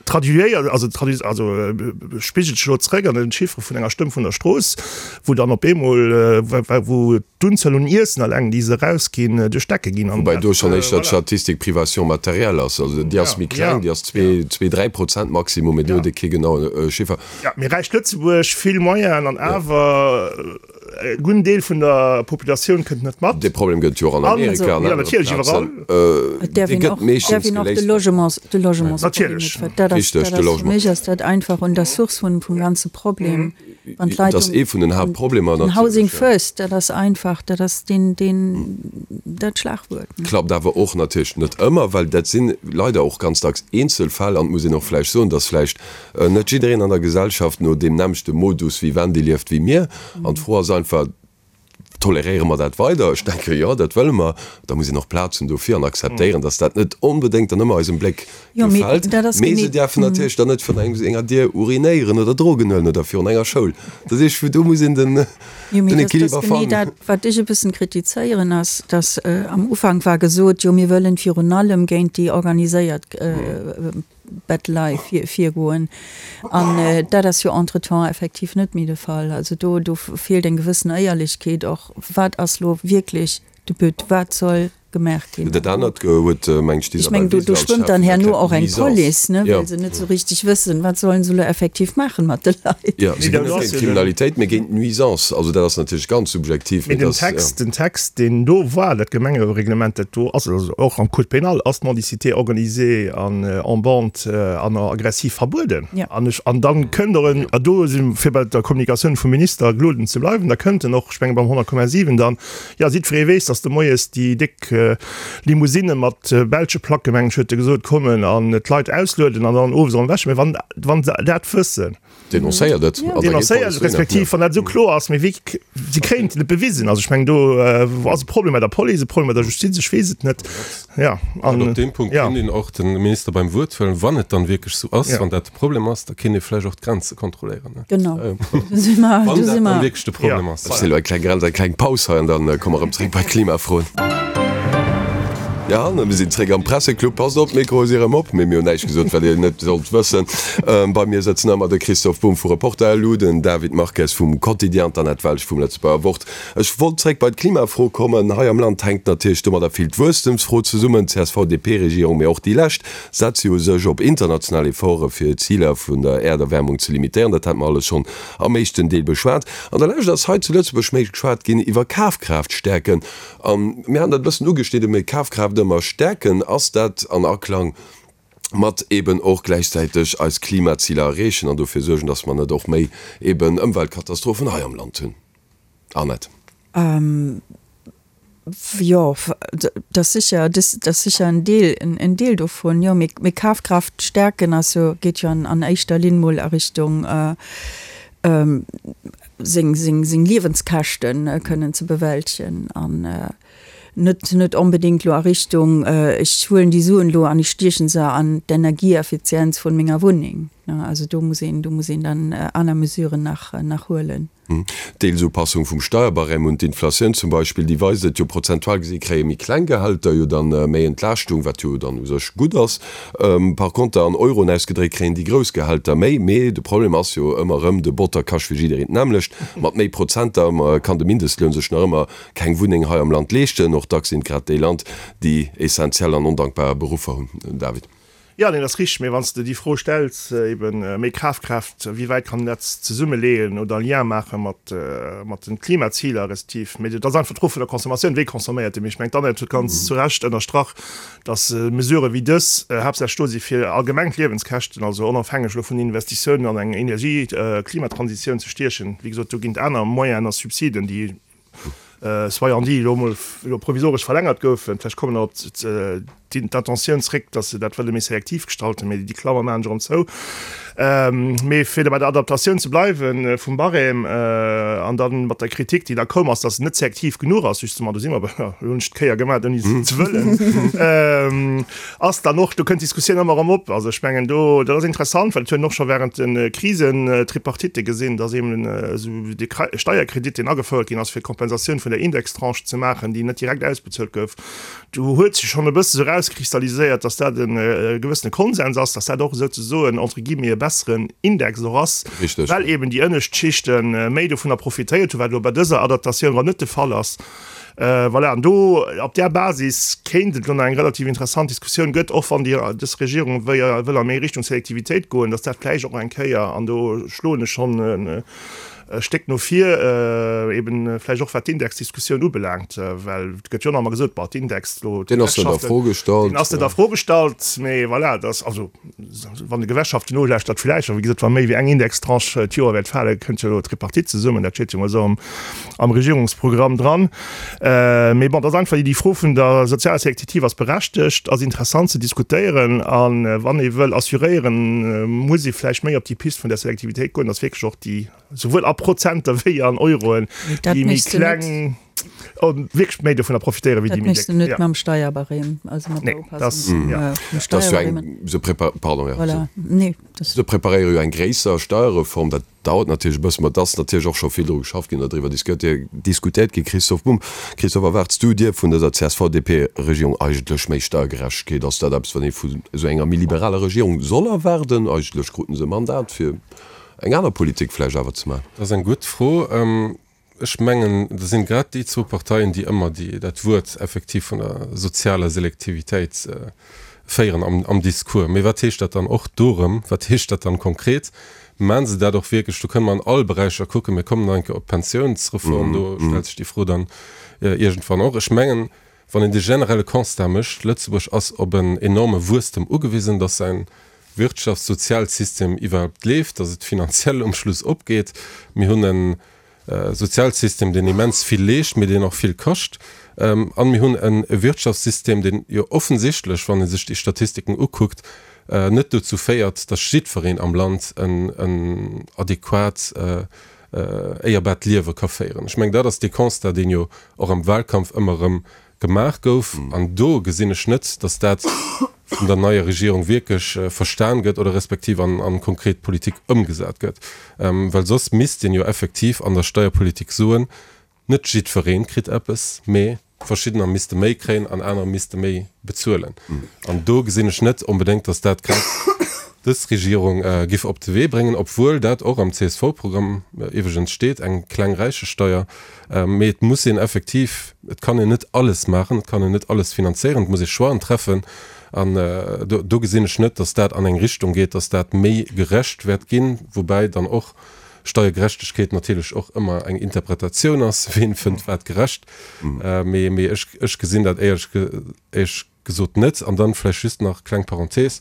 traduiéiert, also traduit, also spigelt sech elo zrëck an den Chiffre vun enger Stëmm vun der Strooss, wou dann op eemol, wou d'Unzuel un Iessen alleng, déi se erausginn, duerch d'Decke ginn. Woubäi do schonn éischter d'Statistik Privation matérielle ass. Also déi ass méi kleng, déi ass zwee, zwee, 3% maximum, mee do huet ee kee genaue Chiffer. Jo, mee räicht Lëtzebuerg, vill Moyenen an awer e gudden Deel vun der Populatioun kënnt net mat. Dee Problem gëtt et jo och an Amerika, an anere Plazen. Et däerf een och, däerf een och de Logements, de Logementsproblem net ver-, dat ass, dat ass, fir mech ass dat einfach un der Source vun, vum ganze Problem. Wann d'Leit Dat ass ee vun den Haaptproblemer natierlech. Housing first, dat ass einfach, dat ass deen, deen, dat Schlagwuert. Klappt awer och natierlech net ëmmer, well dat si leider och ganz dacks Eenzelfäll. An et muss een och vläicht soen, dass vläicht net jiddereen an der Gesellschaft no deem nämmlechte Modus vivendi lieft wéi mir. An d'Fro ass einfach, Toleréiere mer dat weider? Ech denke jo, dat wëlle mer. Da muss een och Plaz hunn dofir an akzeptéieren, dass dat net onbedéngt dann ëmmer eisem Bléck gefält. Mee se däerfen natierlech dann net virun engem enger Dier urinéieren oder Drogen huelen oder virun enger Schoul. Dat heescht, do muss een den Equiliber fannen. Dat, wat ech e bëssen kritizéieren, ass, dass am Ufank war gesot, jo mir wëllen virun allem géint déi organiséiert Bettelei virgoen. An dat ass jo entretemps effektiv net méi de Fall. Also do, do feelt eng gewëssen Éierlechkeet och. Wat ass lo wierklech de But? Wat soll gemaach ginn? Dat anert huet, meng ech, d'Isabel Ech meng, do, do schwëmmt dann herno och eng Police, ne, well se net esou richteg wëssen, wat sollen se lo effektiv maachen mat de Leit. Jo, se ginn net géint d'Kriminalitéit, mee géint d'Nuisance. Also dat ass natierlech ganz subjektiv. Mee den Text, den Text, deen do war, dat Gemengereglement, dat do ass, also och am Code pénal ass d'Mendicité organisée an en bande an aggressiv verbueden. An ech, an dann kënnt och en, a do si fir bei der Kommunikatioun vum Minister Gloden ze bleiwen, da kënnt en och, ech menge beim 100,7 dann, jo, jiddweree weess, datt de moies déi déck. Limousinne mat belsche Placke, mengen ech, huet e gesot, kommen an d'Leit auslueden an dann owes erëm ewech. Mee wann, wann se dat wëssen. Denoncéiert et. Denoncéiert et, respektiv wann dat esou kloer ass. Mee wéi, se kréien et net bewisen. Also ech mengen, do ass e Problem bei der Police, e Problem bei der Justiz, ech weess et net. Ja, an op deem Punkt kéint een och de Minister beim Wuert huelen, wann et dann wierklech esou ass, wann dat de Problem ass, da kéint ee vläicht och d'Grenze kontrolléieren. Genau, do si mer. Wann dat dann wierklech de Problem ass. Ech si elo eng kleng Grenz, eng kleng Paus hei an dann komme mer erëm zréck bei d'Klimafroen. Ja, an mir sinn zréck am Presseclub. Passt op, d'Mikroe si erëm op, mee mir hunn näischt gesot, wat Dir net sollt wëssen. Bei mir sëtzen ëmmer de Christoph Bumb vu Reporter.lu, den David Marques vum Quotidien an d'Annette Welsch vum Lëtzebuerger Wort. Ech wollt zréck bei d'Klimafro kommen. Hei am Land hänkt natierlech domadder vill d'Wuesstemsfro zesummen. D'CSV-DP-Regierung, mee och déi lescht, setze jo sech op international Efforte fir d'Ziler vun der Äerderwärmung ze limitéieren. Dat hate mer alles schonn am éischten Deel beschwat. An der Lescht ass hei zu Lëtzebuerg méi geschwat ginn iwwer Kafkraaft stäerken. A mir haten dat e bëssen ugeschnidden, mee Kafkraaft ëmmer stäerken, ass dat an Aklang mat eben och gläichzäiteg eis Klimaziler erreechen an dofir suergen, dass mer net och méi eben Ëmweltkatastrophen hei am Land hunn? Annette. Jo, dat ass sécher, dat ass sécher en Deel, en Deel dovun, jo. Mee Kafkraaft stäerken ass jo, geet jo an éischter Linn mol a Richtung seng, seng, seng Liewenskäschte kënnen ze bewältegen an net, net onbedéngt lo a Richtung, ech huelen déi Suen elo an ech stiechen se an d'Energieeffizienz vun menger Wunneng. Also do muss een, do muss een dann aner Mesuren nach, nach huelen. D'Deelsupassung vum Steierbarème un d'Inflatioun zum Beispill, déi weist et jo, prozentual gesi kréie méi kleng Gehälter jo dann méi Entlaaschtung, wat jo dann u sech gutt ass. Par conter an Euroen ausgedréckt kréien déi grouss Gehälter méi. Mee de Problem ass jo ëmmer erëm, de Botter kascht fir jiddereen d'nämmlecht. Mat méi Prozenter kann de Mindestloun sech nach ëmmer keng Wunneng hei am Land leeschten. Och dacks sinn et grad déi Land, déi essentiell an ondankbar Beruffer hunn. David. Jo, neen, dat ass richteg. Mee wann s de déi Fro stells, eben méi Kafkraaft, wéi wäit kann een dat zesummeleeën oder e Lien maache mat mat den Klimaziler respektiv, mee dat ass einfach d'Fro vun der Consommatioun, wéi consomméiert ee? Mee ech mengen, d'Annette huet ganz zu Recht ënnerstrach, datt Mesurë wéi dës haaptsächlech do si fir allgemeng d'Liewenskäschten, also onofhängeg elo vun den Investitiounen an eng Energie Klimatransitioun ze stiechen. Wéi gesot, do ginn et aner Moyenen a Subsiden, déi soyant dit, elo emol elo provisoresch verlängert goufen. Vläicht kommen der op d'Intentioun zréck, datt se dat wëlle méi selektiv gestalten, mee déi Klammer maachen ech erëm zou. Mee fir da bei der Adaptatioun ze bleiwe vum Barème an da mat der Kritik, déi da koum ass, datt se net selektiv genuch ass, justement, do si mer bei, elo hunn ech d'Kéier gemaach, ouni se ze wëllen, ass dann och, do kënnt d'Diskussioun ëmmer erëm op. Also ech mengen do, dat ass interessant, well et huet een och scho während de Krisentripartitte gesinn, datt eben esou dee Steierkredit, deen agefouert ginn ass, fir d'Kompensatioun vun der Indextranche ze maachen, déi net direkt ausbezuelt gouf, do huet sech schonn e bësse sou erauskristalliséiert, datt dat e gewëssene Konsens ass, datt dat och esouzesoen entre guillemets e besseren Index och ass, well eben déi ënnescht Schichte méi dovunner profitéiert hunn, wat elo bei dëser Adaptatioun erëm net de Fall ass. Voilà, an do op där Basis kéint et elo nach eng relativ interessant Diskussioun gëtt, och wann déi dës Regierung wëll a méi Richtung Selektivitéit goen, datt dat vläicht och eng Kéier, an do schloen ech schonn e Stéck no vir, eben vläicht och wat d'Indexdiskussioun ubelaangt, well et gëtt jo nach ëmmer gesot, bon, d'Index elo, Deen ass net a Fro gestallt. Deen ass net a Fro gestallt, mee voilà, dat ass also, Wann de Gewerkschaften nolauschtert, vläicht, a wéi gesot, wa méi wéi eng Indextranche d'Joer wäert falen, kënnt jo elo d'Tripartite zesummen, dat steet jo mol esou am Regierungsprogramm dran. Mee bon, dat ass einfach déi Fro vun der sozialer Selektitiv ass berechtegt, ass interessant ze diskutéieren. A wann ee wëll assuréieren, muss ee vläicht méi op déi Pist vun der Selektivitéit goen, datt wierklech och déi, souwuel a Prozenter wéi an Euroen, déi méi kleng wierklech méi dovunner profitéieren wéi déi méi déck. Dat méchs de net mam Steierbarème, also mat der Upassung vum Steierbarème. Se pardon, ja. Voilà, nee. Se preparéiere jo eng gréisser Steierreform, dat dauert natierlech e bëssen, ma et ass natierlech och scho vill dru geschafft ginn oder driwwer diskutéiert ginn. Christoph Bumb, Christoph, erwaarts du dir vun dëser CSV-DP-Regierung eigentlech méi Steiergerechtegkeet? Ass dat eppes, wat ee vun esou enger méi liberaler Regierung soll erwaarden? Eigentlech kruten se e Mandat fir eng aner Politik vläicht awer ze maachen. Dat ass eng gutt Fro. Ech mengen, dat sinn grad déi zwou Parteien, déi ëmmer déi, dat Wuert effektiv vun der sozialer Selektivitéit féieren am, am Discours. Mee wat heescht dat dann och do erëm? Wat heescht dat dann konkret? Maachen se dat och wierklech? Do kënne mer an all Beräicher kucken. Mir kommen nach eng Kéier op d'Pensiounsreform, do stellt sech déi Fro dann iergendwann och. Ech mengen, wann een de generelle Constat mécht, Lëtzebuerg ass op en enorme Wuesstem ugewisen, dass säin Wirtschafts-, Sozialsystem iwwerhaupt leeft, dass et finanziell um Schluss opgeet. Mir hunn en. Sozialsystem, deen immens vill leescht, mee deen och vill kascht. An mir hunn e Wirtschaftssystem, deen jo offensichtlech, wann ee sech déi Statistiken ukuckt, net dozou féiert, datt jiddwereen am Land en adequat, éierbaart Liewe ka féieren. Ech mengen, dat ass dee Constat, deen jo och am Wahlkampf ëmmer erëm gemaach gouf. An do gesinn ech net, datt dat vun der neier Regierung wierklech verstan gëtt oder respektiv an konkret Politik ëmgesat gëtt. Well soss misst een jo effektiv an der Steierpolitik soen, net jiddweree kritt eppes, mee verschiddener misste méi kréien an anerer misste méi bezuelen. An do gesinn ech net onbedéngt, datt dat grad dës Regierung giff op de Wee bréngen, obwuel dat och am CSV-Programm iwwregens steet, eng kleng Räichesteier. Mee et muss een effektiv, et kann een net alles maachen, et kann een net alles finanzéieren, et muss ee Choixen treffen. An do gesinn ech net, datt dat an eng Richtung geet, datt dat méi gerecht wäert ginn, woubäi dann och Steiergerechtegkeet natierlech och ëmmer eng Interpretatioun ass, ween fënnt wat gerecht. Mee ech gesinn dat éierlech gesot net. An dann vläicht just nach, kleng Parenthese,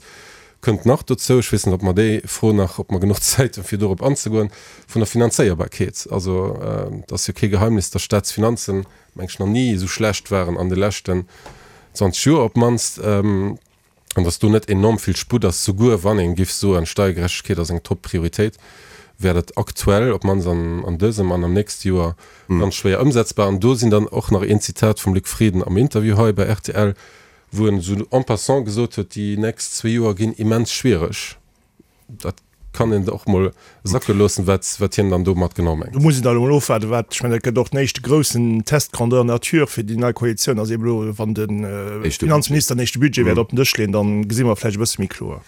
kënnt nach dozou, ech weess net, ob mer déi Fro nach, ob mer genuch Zäit hunn, fir dorop anzegoen, vun der Finanzéierbarkeet. Also et ass jo kee Geheimnis, dass d'Staatsfinanzen, meng ech, nach ni esou schlecht waren an de leschten 20 Joer op d'mannst, an dass do net enorm vill Sputt ass. Souguer wann ee giff soen, Steiergerechtegkeet ass eng Top-Prioritéit, wär dat aktuell, op d'mannst an dësem an am nächste Joer, ganz schwéier ëmsetzbar. An do sinn dann och nach een Zitat vum Luc Frieden am Interview hei bei rtl, wou en esou en passant gesot huet, déi nächst zwee Joer ginn immens schwiereg. Dat kann een och mol sacke loossen, wat, wat hien dann domat genau mengt. Do muss een dann elo mol ofwaarden, wat, ech mengen, dat gëtt och den éischte groussen Test grandeur nature fir déi nei Koalitioun, ass eeben elo, wann de Finanzminister den éischte Budget wäert op den Dësch leeën, dann gesi mer vläicht e bësse méi kloer.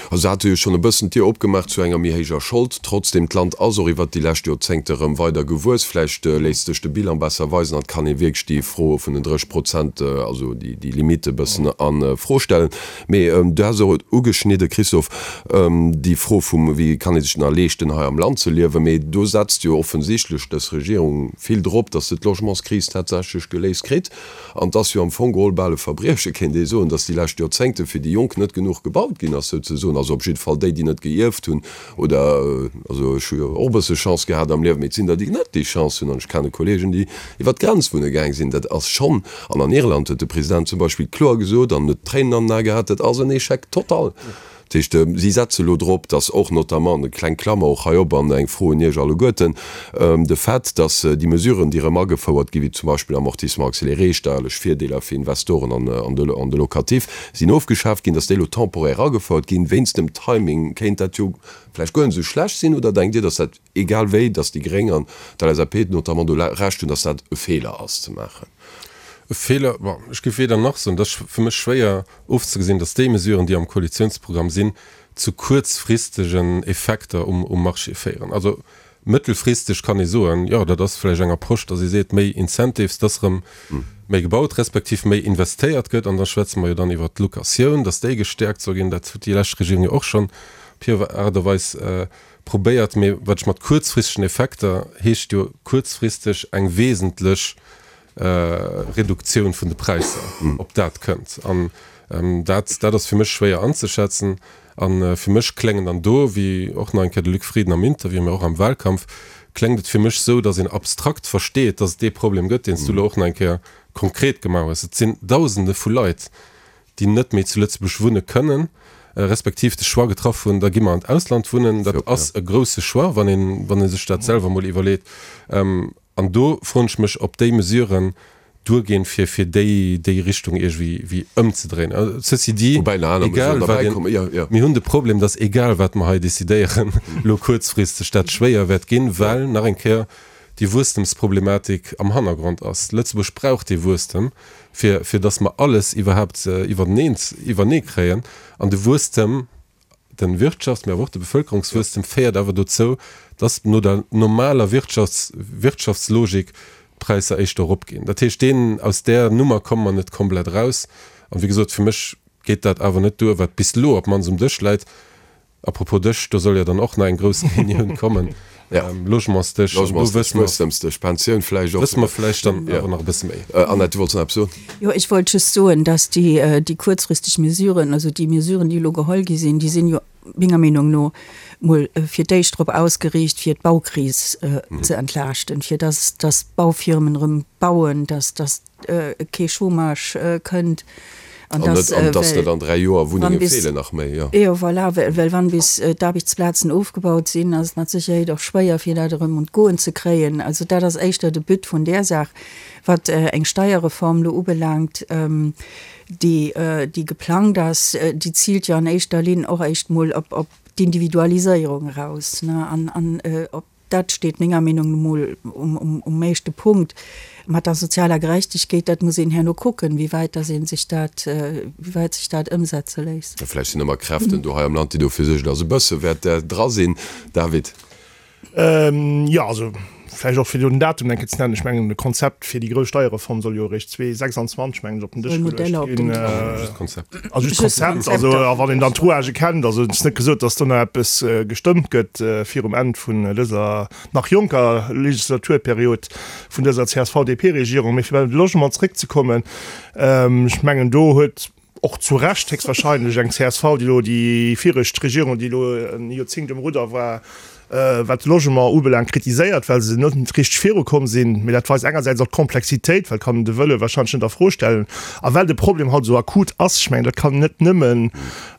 Also se hate jo schonn e bëssen d'Dier opgemaach zu enger méi héijer Schold. Trotzdem, d'Land ass och iwwert déi lescht Joerzéngte erëm weider gewuess. Vläicht léisst sech de Bilan besser weisen an et kann ee wierklech déi Fro vun den 30 Prozent, also déi Limite e bëssen a Fro stellen. Mee du has och ugeschnidde, Christophe, déi Fro vum, wéi kann ee sech nach leeschten hei am Land ze liewen. Mee do setzt jo offensichtlech dës Regierung vill drop, datt se d'Logementskris tatsächlech geléist kritt. An et ass jo am Fong geholl bal e Verbrieche, kéint ee soen, datt déi lescht Joerzéngte fir déi Jonk net genuch gebaut ginn ass, souzesoen. Also op jidde Fall déi, déi net geierft hunn oder, also ech hu jo och e bësse Chance gehat am Liewen, mee et sinn der, déi net déi Chance hunn. An ech kenne Kollegen, déi iwwer d'Grenz wunne gaang sinn. Dat ass schonn, an an Irland huet de President zum Beispill kloer gesot an huet Tréinen an den Ae gehat, dat ass en Échec total. Dat heescht, si setze elo drop, datt och notamment, eng kleng Klammer och hei op an eng Fro un Iech alleguerten, de Fait, datt déi Mesuren, déi erëm agefouert ginn, wéi zum Beispill Amortissement accéléré, steierlech Virdeeler fir Investoren an de Locatif, sinn ofgeschaaft ginn, datt déi elo temporaire agefouert ginn. Wéinst dem Timing kéint dat jo vläicht guer net esou schlecht sinn. Oder denkt Dir, datt dat, egal wéi, datt déi Gréng an d'LSAP notamment do Recht hunn, datt dat e Feeler ass ze maachen? E Feeler, bon, ech géif weder nach soen. Et ass fir mech schwéier ofzegesinn, datt déi Mesuren, déi am Koalitionsprogramm sinn, zu kuerzfristegen Effekter um Marché féieren. Also mëttelfristeg kann ee soen, jo, dat ass vläicht eng Approche, datt ee seet, méi Incentives, datt erëm méi gebaut respektiv méi investéiert gëtt. An da schwätze mer jo dann iwwert d'Locatioun, datt déi gestäerkt soll ginn. Dat huet déi lescht Regierung jo och schonn op hir Aart a Weis probéiert. Mee wat ech mat kuerzfristegen Effekter heescht jo kuerzfristeg eng wesentlech Reduktioun vun de Präisser, ob dat kënnt. An dat, dat ass fir mech schwéier anzeschätzen. A fir mech kléngen dann do, wéi och nach eng Kéier de Luc Frieden am Interview, mä och am Wahlkampf, kléngt et fir mech esou, datt een abstrakt versteet, datt et dee Problem gëtt, deen s du elo och nach eng Kéier konkret gemaach hues. Et sinn Dausende vu Leit, déi net méi zu Lëtzebuerg wunne kënnen, respektiv de Choix getraff hunn, da gi mer an d'Ausland wunnen. Dat ass e grousse Choix, wann een, wann ee sech dat selwer emol iwwerleet. An do froen ech mech, ob déi Mesuren duerginn, fir fir déi déi Richtung iergendwéi wéi ëmzedréinen. Ceci dit, Woubäi nach aner egal Mesuren wat derbäi een, kommen, jo, jo. mir hunn de Problem, dass egal wat mer hei decidéieren, elo kuerzfristeg dat schwéier wäert ginn, well nach eng Kéier déi Wuesstemsproblematik am Hannergrond ass. Lëtzebuerg brauch dee Wuesstem, fir fir dass mer alles iwwerhaapt iwwerteneen iwwernee kréien. An de Wuesstem De Wirtschafts-, mee awer och de Bevëlkerungswuesstem féiert awer dozou, dass no der normaler Wirtschafts-, Wirtschaftslogik d'Präisser éischter eropginn. Dat heescht, deen, aus där Nummer komme mer net komplett eraus. An, wéi gesot, fir mech geet dat awer net duer, wat bis elo op d'mannst um Dësch läit. À propos Dësch, do soll jo dann och nach eng grouss Reunioun kommen. Logementsdësch, an do wësse mer. Wuesstemsdësch, Pensioun vläicht och. Wësse mer vläicht dann awer nach e bësse méi. Annette, du wollts nach eppes soen? Jo, ech wollt just soen, dass déi, déi kuerzfristeg Mesuren, also déi Mesuren, déi elo geholl gi sinn, déi sinn jo menger Meenung no mol fir d'éischt drop ausgeriicht, fir d'Baukris ze entlaaschten, fir dass, dass d'Baufirmen erëm bauen, dass, dass kee Chômage kënnt an dass, well, dass net an 3 Joer Wunnenge feelen nach méi, jo. Jo, voilà, well wann bis d'Aarbechtsplazen ofgebaut sinn, ass et mat Sécherheet och schwéier, fir dat erëm un d'Goen ze kréien. Also dat ass éischter de But vun där Saach. Wat eng Steierreform elo ubelaangt, déi, déi geplangt ass, déi ziilt jo an éischter Linn och éischt mol op d'Individualiséierung eraus, ne, an, an op Dat steet menger Meenung no mol um éischte Punkt. Mat der sozialer Gerechtegkeet, dat muss een herno kucken, wéi wäit dass ee sech dat, wéi wäit sech dat ëmsetze léisst. Vläicht sinn ëmmer Kräften do hei am Land, déi dofir suergen, dass e bësse wäert dra sinn. David. Jo, also vläicht och fir do den Datum eng Kéier ze nennen. Ech mengen, de Konzept fir déi grouss Steierreform soll jo eréischt 2026, mengen ech, op den Dësch geluecht ginn. Just d'Konzept. Also just d'Konzept. Also a wann een dann d'Rouagë kennt, also et ass net gesot, datt do nach eppes gestëmmt gëtt virum Enn vun dëser nach jonker Legislaturperiod vun dëser CSV-DP-Regierung. Mee fir bei de Logement zréckzekommen, ech mengen do huet och zu Recht héchstwahrscheinlech eng csv, déi elo déi viregt Regierung, déi elo e Joerzéngt um Rudder war, wat de Logement ubelaangt, kritiséiert, well se net richteg virukomm sinn. Mee dat weist engersäits och d'Komplexitéit, well kann een de Wëlle wahrscheinlech net a Fro stellen a well de Problem haut esou akut ass. Ech mengen, dat kann een net nëmmen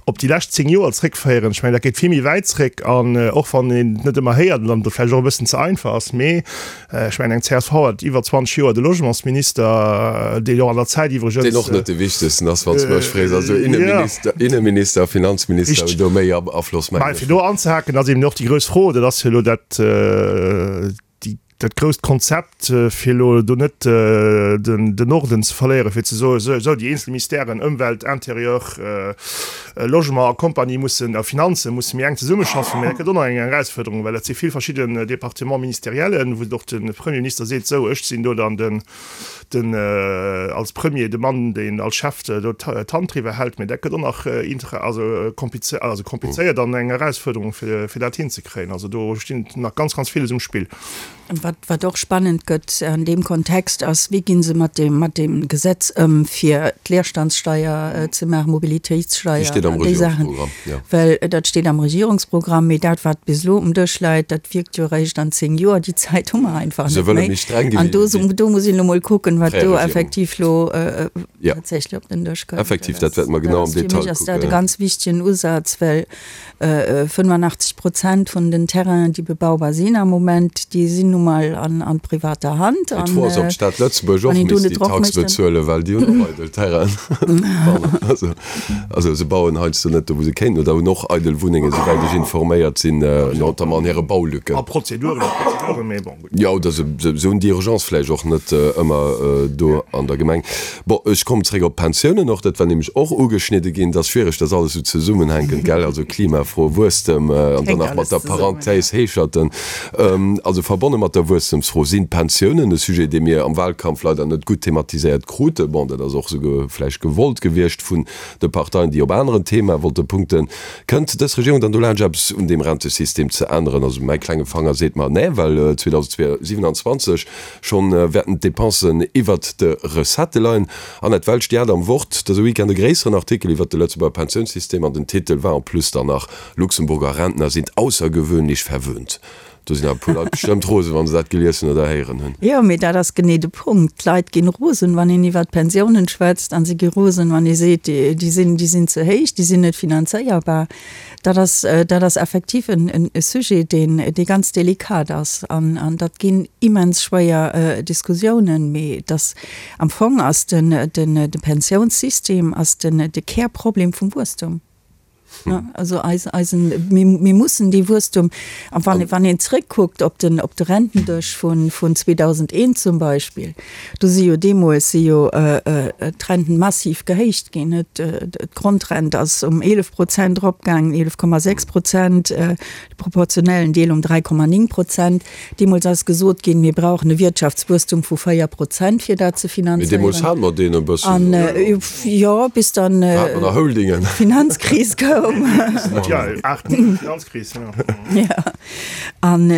op déi lescht 10 Joer zréckféieren. Ech mengen, dat geet vill méi wäit zréck an och wann een et net ëmmer héiert an dann et vläicht och e bëssen ze einfach ass, mee Ech mengen, eng csv hat iwwer 20 Joer de Logementsminister, deen och an der Zäit iwwregens. Deen och net de wichtegsten ass, wann s de mech frees. Also Inneminister, Inneminister a Finanzminister hunn do méi Afloss, mengen ech. Mä fir do anzehaken, ass eben och déi grouss Fro, dat ass jo elo dat, déi, dat grousst Konzept, fir elo do net den, den Norden ze verléieren, fir ze soen, esou, déi eenzel Ministèren, Ëmwelt, Intérieur, Logement a Compagnie mussen, a Finanzen, musse méi enk zesummeschaffen. Mä dat gëtt och nach eng Erausfuerderung, well dat si vill verschidden Départements ministériellen, wou och de Premierminister seet, Sou, ech sinn do dann den, den als Premier de Mann, deen als Chef do d'Hand driwwer hält. Mä dat gëtt och nach inter, also kompliz, also komplizéiert an eng Erausfuerderung, fir, fir dat hinzekréien. Also do stinn nach ganz, ganz villes um Spill. Wat, wat och spannend gëtt an deem Kontext ass, wéi gi se mat deem, mat deem Gesetz ëm, fir d'Leerstandssteier ze maachen, Mobilitéitssteier Déi steet am an déi Saachen. Regierungsprogramm, jo. Well dat steet am Regierungsprogramm, mee dat, wat bis elo um Dësch läit, dat wierkt jo eréischt an 10 Joer. Déi Zäit hu mer einfach Se net wëlle méi. méi streng gi An wéi do, déi do muss een elo mol kucken, wat fréier do Regierung. effektiv elo Ja. tatsächlech op den Dësch kënnt. Effektiv, dat wäerte mer Dat genau am ass, fir Detail mech ass dat e kucken. ganz wichtegen Usaz, well 85 Prozent vun den Terrainen, déi bebaubar sinn am Moment, déi sinn nu mol an privater Hand. Mee d'Fro ass, ob d'Stad Lëtzebuerg och misst déi Tax bezuelen, well déi hunn och eidel Terrainen. Pardon. Also se bauen heiansdo net do, wou se kéinten, oder hunn och eidel Wunnengen, souwäit ech informéiert sinn, notamment an hire Baulücken. A Prozeduren a Prozeduren, mee bon, gutt. Jo, oder se hunn déi Urgence vläicht och net ëmmer do an der Gemeng. Bon, ech kommen zréck op d'Pensiounen och. Dat war nämlech och ugeschnidde ginn. Et ass schwiereg, dass alles esou zesummenhänkent, gell? Also Klimafro, Wuesstem an dann nach mat der Parenthèse Heescherten. Also verbonne mat der Wuesstemsfro sinn d'Pensiounen, e Sujet, dee mir am Wahlkampf leider net gutt thematiséiert kruten. Bon, dat ass och esou vläicht gewollt gewiescht vun de Parteien, déi op aneren Themae wollte punkten. Kënnt dës Regierung dann dolaanscht, eppes un deem Rentesystem ze änneren? Also mäi klenge Fanger seet mer, nee, well 2027 Schonn wäerten d'Depensen iwwert de Recettë leien. Annette Welsch, Dir hat am Wort dëse Weekend e gréisseren Artikel iwwert de Lëtzebuerger Pensiounssystem an den Titel war en plus dann nach Luxemburger Rentner sind außergewöhnlich verwöhnt. Do sinn awer e puer Leit bestëmmt rosen, wa se dat gelies hunn oder héieren hunn. Jo, mee dat ass genee de Punkt. D'Leit ginn rosen, wann een iwwert d'Pensiounen schwätzt a si gi rosen, wann ee seet, déi sinn, déi sinn ze héich, déi sinn net finanzéierbar. Dat ass, dat ass effektiv en Sujet, deen, dee ganz delikat ass. An, an dat ginn immens schwéier Diskussiounen. Mee et ass, am Fong ass den, den, de Pensiounssystem ass den, de Kärproblem vum Wuesstum. Also eis, eisen, mir, mir mussen dee Wuesstum, a wann, wann een zréckkuckt op den, op de Rentendësch vun, vun 2001 zum Beispill, Do si jo deemools si jo d'Renten massiv gehéicht ginn. D'Grondrent ass um 11 Prozent eropgaangen, 11,6 Prozent, de proportionellen Deel um 3,9 Prozent. Deemools ass gesot ginn, mir brauchen e Wirtschaftswuesstum vu 4 Prozent, fir dat ze Mee deemools finanzéieren. hate mer deen e bëssen, An, oder? jo, bis dann Do hate mer nach Holdingen. d'Finanzkris koum. koum. Jo, 8, 9, Finanzkris, jo. Jo. An,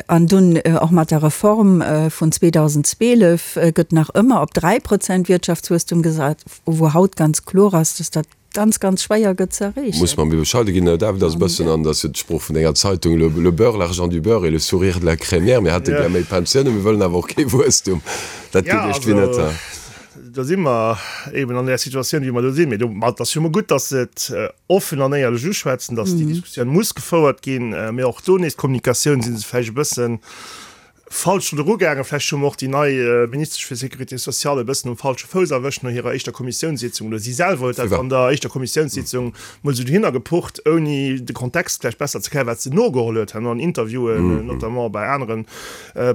an dunn och mat der Reform vun 2012 gëtt nach ëmmer op 3% Wirtschaftswuesstum gesat, wou haut ganz kloer ass, dass dat ganz, ganz schwéier gëtt ze erreechen. Muss mer méi bescheide ginn. David ass e bëssen, an dat ass jo d'Sprooch vun denger Zeitung, le, le beurre, l'argent du beurre et le sourire de la crémière. Mir hätte gär méi Pensiounen, mir wëllen awer och kee Wuesstum. Dat geet iergendwéi net. Do si mer eben an där Situatioun, wéi mer do sinn. Mee do, ma et ass jo emol gutt, datt se et offen an éierlech uschwätzen, datt déi Diskussioun muss gefouert ginn. Mee och do nees, d'Kommunikatioun si se vläicht e bëssen falsch drun erugaangen. Vläicht hu mer och déi nei Ministesch fir Sécurité sociale e bëssen um falsche Fouss erwëscht no hirer éischter Kommissiounssitzung. Oder si selwer huet dat an der éischter Kommissiounssitzung mol esou dohinner gepucht, ouni de Kontext vläicht besser ze kennen, wat se nogeholl huet herno an Interviewen, notamment bei aneren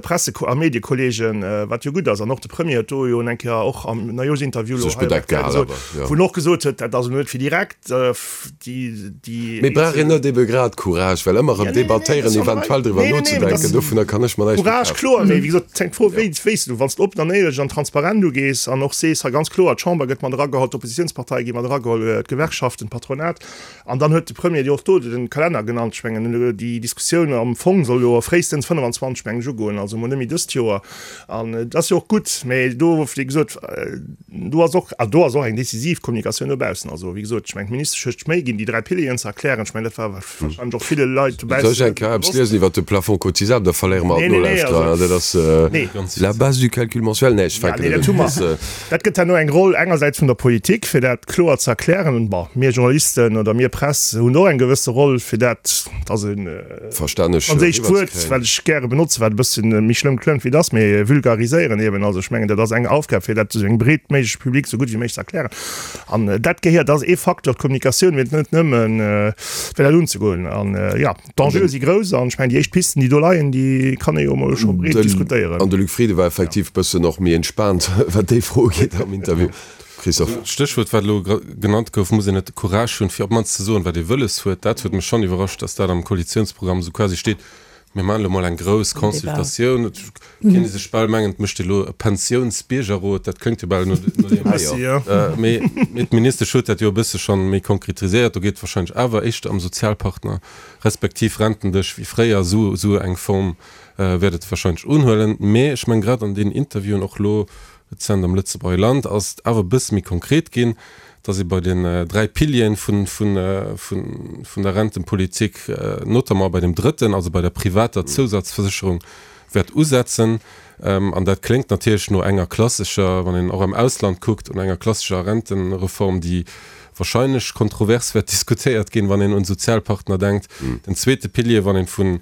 Presse a Mediekolleegen, wat jo gutt ass. An och de Premier huet do jo eng Kéier och am Neijooschinterview elo hei op rtl gesot, wou en och gesot huet, dat ass elo net fir direkt déi. Mee brauch een net ebe grad Courage, well ëmmer erëm debattéieren, eventuell driwwer nozedenken, dovunner kann ech mer näischt méi Courage, kloer, mee wéi gesot, et hänkt d'Fro, wéi wéi s du, wann s de oppen an éierlech an transparent ugees an och sees, hei ganz kloer, d'Chamber gëtt mat erageholl, d'Oppositionsparteie gi mat erageholl, d'Gewerkschaften, d'Patronat, An dann huet de Premier jo och do de Kalenner genannt. Ech mengen, déi Diskussioun am Fong soll jo fréistens 25, mengen ech, ugoen, also emol net méi dëst Joer. An et ass jo och gutt, mä do, wéi gesot, do ass och, do ass och eng decisiv Kommunikatioun no baussen. Also, wéi gesot, ech mengen, d'Ministesch huet sech Méi ginn, déi 3 Pilieren ze erklären. Ech mengen, dat war warscheinlech och ville Leit dobaussen. Soll ech eng Kéier eppes liesen iwwert de Plafond cotisable? Da verléiere mer all d'Nolauschterer. Dat ass la base du calcul mensuel. Nee, ech fänken net un. Dat gëtt herno eng Roll engersäits vun der Politik, fir dat kloer ze erklären. Bon, mir Journalisten oder mir Press hunn och eng gewësse Roll, fir dat, dat ass e franséischt Wuert, wat ech gäre benotzen, wat e bësse méi schlëmm klëngt wéi et ass, mee vulgariséieren eben. Also ech mengen, dat ass eng Aufgab, fir dat esou engem breet méigleche Public esou gutt wéi méiglech ze erklären. An dat gehéiert, dat ass ee Facteur, d'Kommunikatioun, mee net nëmmen, fir dat unzegoen. An jo. D'Enjeue si grouss an ech mengen, déi éischt Pisten, déi do leien, déi kann ee jo emol scho breet diskutéieren. An de Luc Frieden war effektiv e bëssen och méi entspaant, wat déi Fro ugeet am Interview. Christophe. D'Stéchwuert, wat elo genannt gouf, muss een net de Courage hunn, fir op d'mannst ze soen, wat ee wëlles huet. Dat huet mech schonn iwwerrascht, datt dat am Koalitiounsprogramm esou quasi steet, Mir maachen elo mol eng grouss Consultatioun. Et kéint ee sech bal mengen, et mécht ee elo e Pensiounsbiergerrot. Dat kléngt jo bal no deem. Mee d'Ministesch huet dat jo e bësse schonn méi konkretiséiert. Do geet et warscheinlech awer éischter ëm Sozialpartner. Respektiv Rentendesch wéi fréier, esou esou eng Form wäert et wahrscheinlech unhuelen. Mee ech mengen, grad an deenen Interviewen, och elo rezent am Lëtzebuerger Land, ass et awer e bësse méi konkret ginn, dass ee bei den 3 Pilieren vun vun vun der Rentenpolitik, notamment bei dem drëtten, also bei der privater Zousatzversécherung, wäert usetzen. An dat kléngt natierlech no enger klassescher, wann een och am Ausland kuckt, no enger klassescher Rentenreform, déi wahrscheinlech kontrovers wäert diskutéiert ginn, wann een un d'Sozialpartner denkt. Den zweete Pilier, wann een vu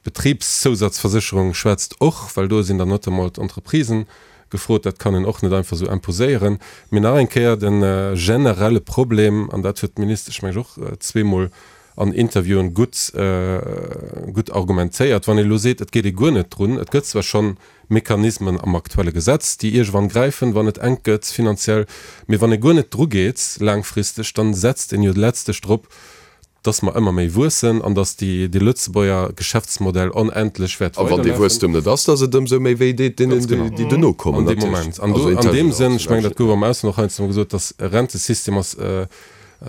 Betribszousatzversécherung schwätzt, och, well do sinn dann notamment d'Entreprisen gefrot, dat kann een och net einfach esou imposéieren. Mee nach eng Kéier, de generelle Problem, an dat huet d'Ministesch, meng ech, och zweemol an Interviewen gutt, gutt argumentéiert, wann ee elo seet, et geet ee guer net drun, et gëtt zwar schonn Mechanismen am aktuelle Gesetz, déi iergendwann gräifen, wann et enk gëtt finanziell, mee wann ee guer net drugeet laangfristeg, dann setzt een jo letztlech drop, dass mer ëmmer méi wuessen an dass déi, dee Lëtzebuerger Geschäftsmodell onendlech wäert A wann dee weiderlafen. Wuesstem net ass, dass et ëmsou méi wéi deet deenen, Ganz genau. déi duerno kommen, An deem natierlech. Moment. An Also do, an deem Sënn, ech mengen, dat intergenerationell. gouf am Ausland och heiansdo mol gesot, dass e Rentesystem ass, e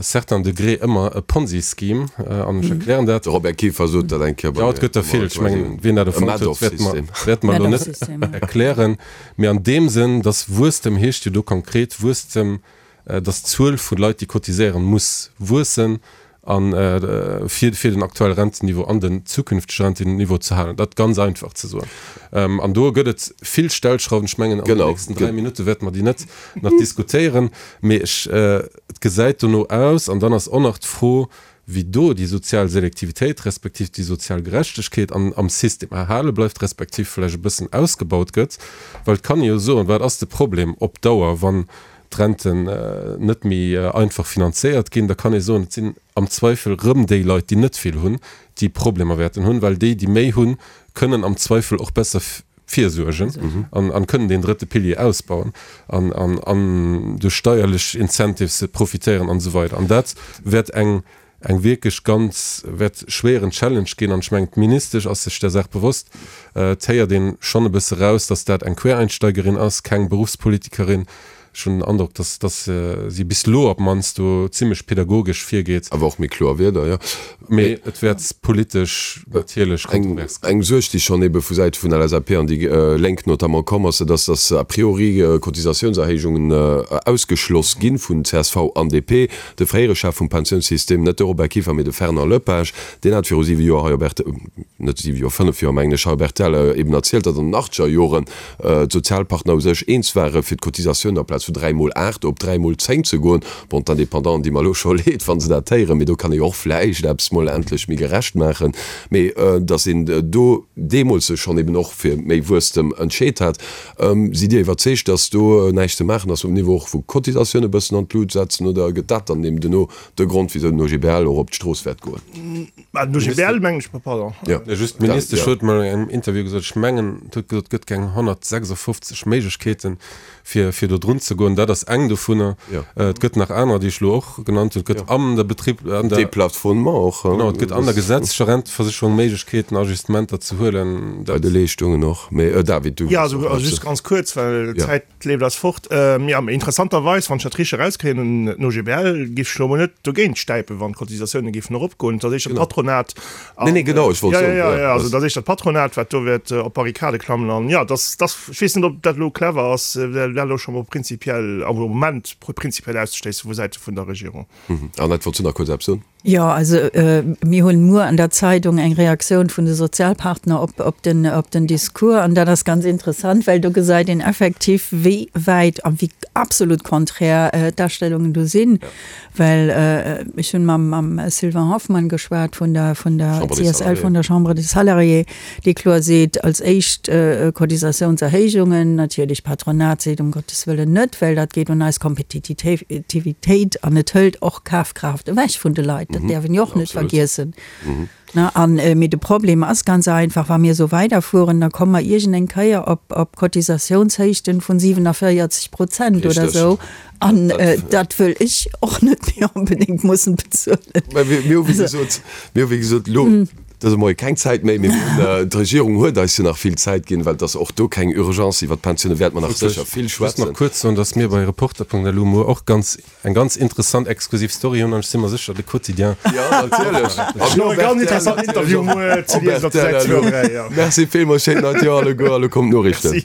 certain degré ëmmer e Ponzi-Scheme, an ech erklären dat. De Robert Kieffer sot dat eng Kéier bei mir. Jo, et gëtt der vill. Ech mengen, wien dat E erfonnt huet, wäerte mer, Madoff-System. wäerte mer elo net erklären. Mee an deem Sënn, dass Wuesstem heescht jo do konkret Wuesstem, dass d'Zuel vu Leit, déi cotiséieren, muss wuessen a fir fir den aktuelle Rentenniveau an den zukünftege Rentenniveau ze halen. Dat ganz einfach ze soen. An do gëtt et vill Stellschrauwen. Ech mengen, an den nächsten 3 Minutte wäerte mer déi net nach diskutéieren. Mee ech, et gesäit dono aus, an dann ass och nach d'Fro, wéi do déi sozial Selektivitéit respektiv déi sozial Gerechtegkeet an am System erhale bleift, respektiv vläicht e bëssen ausgebaut gëtt. Well et kann ee jo soen, wat ass de Problem op Dauer, wann d'Renten net méi einfach finanzéiert ginn, da kann ee soen, et sinn am Zweifel rëm déi Leit, déi net vill hunn, déi Problemer wäerten hunn, well déi, déi méi hunn, kënnen am Zweifel och besser virsuergen an kënnen deen drëtte Pilier ausbauen an an duerch steierlech Incentives profitéieren an esou weider. An dat wäert eng eng wierklech ganz wäert schwéieren Challenge ginn. An ech mengen, d'Ministesch ass sech där Saach bewosst. Et héiert een schonn e bësse raus, datt dat eng Quereinsteigerin ass, keng Beruffspolitikerin. Ech hunn den Androck, dass, dass si bis elo op d'mannst do zimlech pedagogesch virgeet. Awer och méi kloer Wierder, jo. Mee et wäert politesch natierlech kontrovers ginn. Eng Suerg, déi schonn ebe vu Säite vun LSAP an déi Lénk notamment komm ass, dat ass, dass a priori Cotisatiounserhéijungen ausgeschloss gi vun csv an DP. De fréiere Chef vum Pensiounssystem, net de Robert Kieffer, mee de Fernand Lepage, deen hat viru siwe Joer hei op rtl, net siwe Joer, fënnef Joer mengen ech, hei op rtl eben erzielt, datt an den achtzeger Joren d'Sozialpartner u sech eens ware fir d'Cotisatioun amplaz vu 3 mol 8 op 3 mol 10 ze goen. Bon, d'Indépendanten di mer elo scho leed, wa se dat héieren, mee do kann ee jo och vläicht eppes mol endlech méi gerecht maachen. Mee datt een do deemools sech schonn eben och fir méi Wuesstem entscheet hat. Sidd Dir iwwerzeegt, datt do näischt ze maachen ass um Niveau och vu Cotisatioun e bëssen an d'Lut setzen oder gëtt dat dann eben duerno de Grond, wisou den OGBL och op d'Strooss wäert goen? Mä den OGBL mengen ech, pardon. Jo, just d'Ministesch huet mol an engem Interview gesot, ech mengen, et huet gesot, et gëtt keng 156 Méiglechkeeten, fir, fir do drun ze goen. Dat ass eng dovunner. Et gëtt nach anerer, déi ech elo och genannt hunn. Et gëtt an der Betrib, an der. Deplafonnement och. Genau, et gëtt an der gesetzlecher Renteversécherung Méiglechkeeten, Ajustementer ze huelen. Bei de Leeschtungen och. Mä David, du. Jo, also just ganz kuerz, well d'Zäit. D'Leeft ass fort. Jo, mee interessanterweis, wann ech dat richteg erauskréien, den OGBL géif sech elo emol net dogéint stäipen, wann d'Cotisatioune géifen eropgoen. Et ass éischter d'Patronat. Nee, nee, genau, ech wollt soen. Jo, jo, jo, also et ass éischter d'Patronat, wat do wäert op d'Barrikade klammen. An jo, dass, dass, ech weess net, ob dat elo clever ass, dat elo scho mol prinzipiell, am Moment prinzipiell auszeschléissen vu Säite vun der Regierung. Annette, wollts du nach kuerz eppes soen? Jo, also mir hunn muer an der Zeidung eng Reaktioun vun de Sozialpartner op op den op den Discours an dat ass ganz interessant, well do gesäit een effektiv wéi wäit a wéi absolut konträr d'Astellungen do sinn. Well ech hunn mam mam Sylvain Hoffmann geschwat vun der vun der CSL, vun der Chambre des Salariés, dee kloer seet, als éischt Cotisatiounserhéijungen, natierlech d'Patronat seet um Gottes Wëllen net, well dat geet un eis Kompetititivitéit an et hëlt och Kafkraaft ewech vun de Leit, dat däerf een jo och net vergiessen. An, mee de Problem ass ganz einfach, wa mir esou weiderfueren, da komme mer iergendeng Kéier op op Cotisatiounshéichten vun 47 Prozent oder esou. An dat wëll ech och net méi onbedéngt mussen bezuelen. Mä mir hu wéi gesot, mir hu wéi gesot elo dëse Moie keng Zäit méi, mee mir hunn, d'Regierung huet eis jo nach vill Zäit ginn, well et ass och do keng Urgence. Iwwert d'Pensioune wäerte mer nach sécher vill schwätzen. Just nach kuerz soen, dass mir bei Reporter.lu muer och ganz, eng ganz interessant exklusiv Story hunn an ech si mer sécher, de Quotidien. Jo, natierlech. An och e ganz interessant Interview muer ze liesen op der Säit 2 an 3, jo. Merci villmools, schéint neit Joer alleguer a lo kommen d'Noriichten. Merci.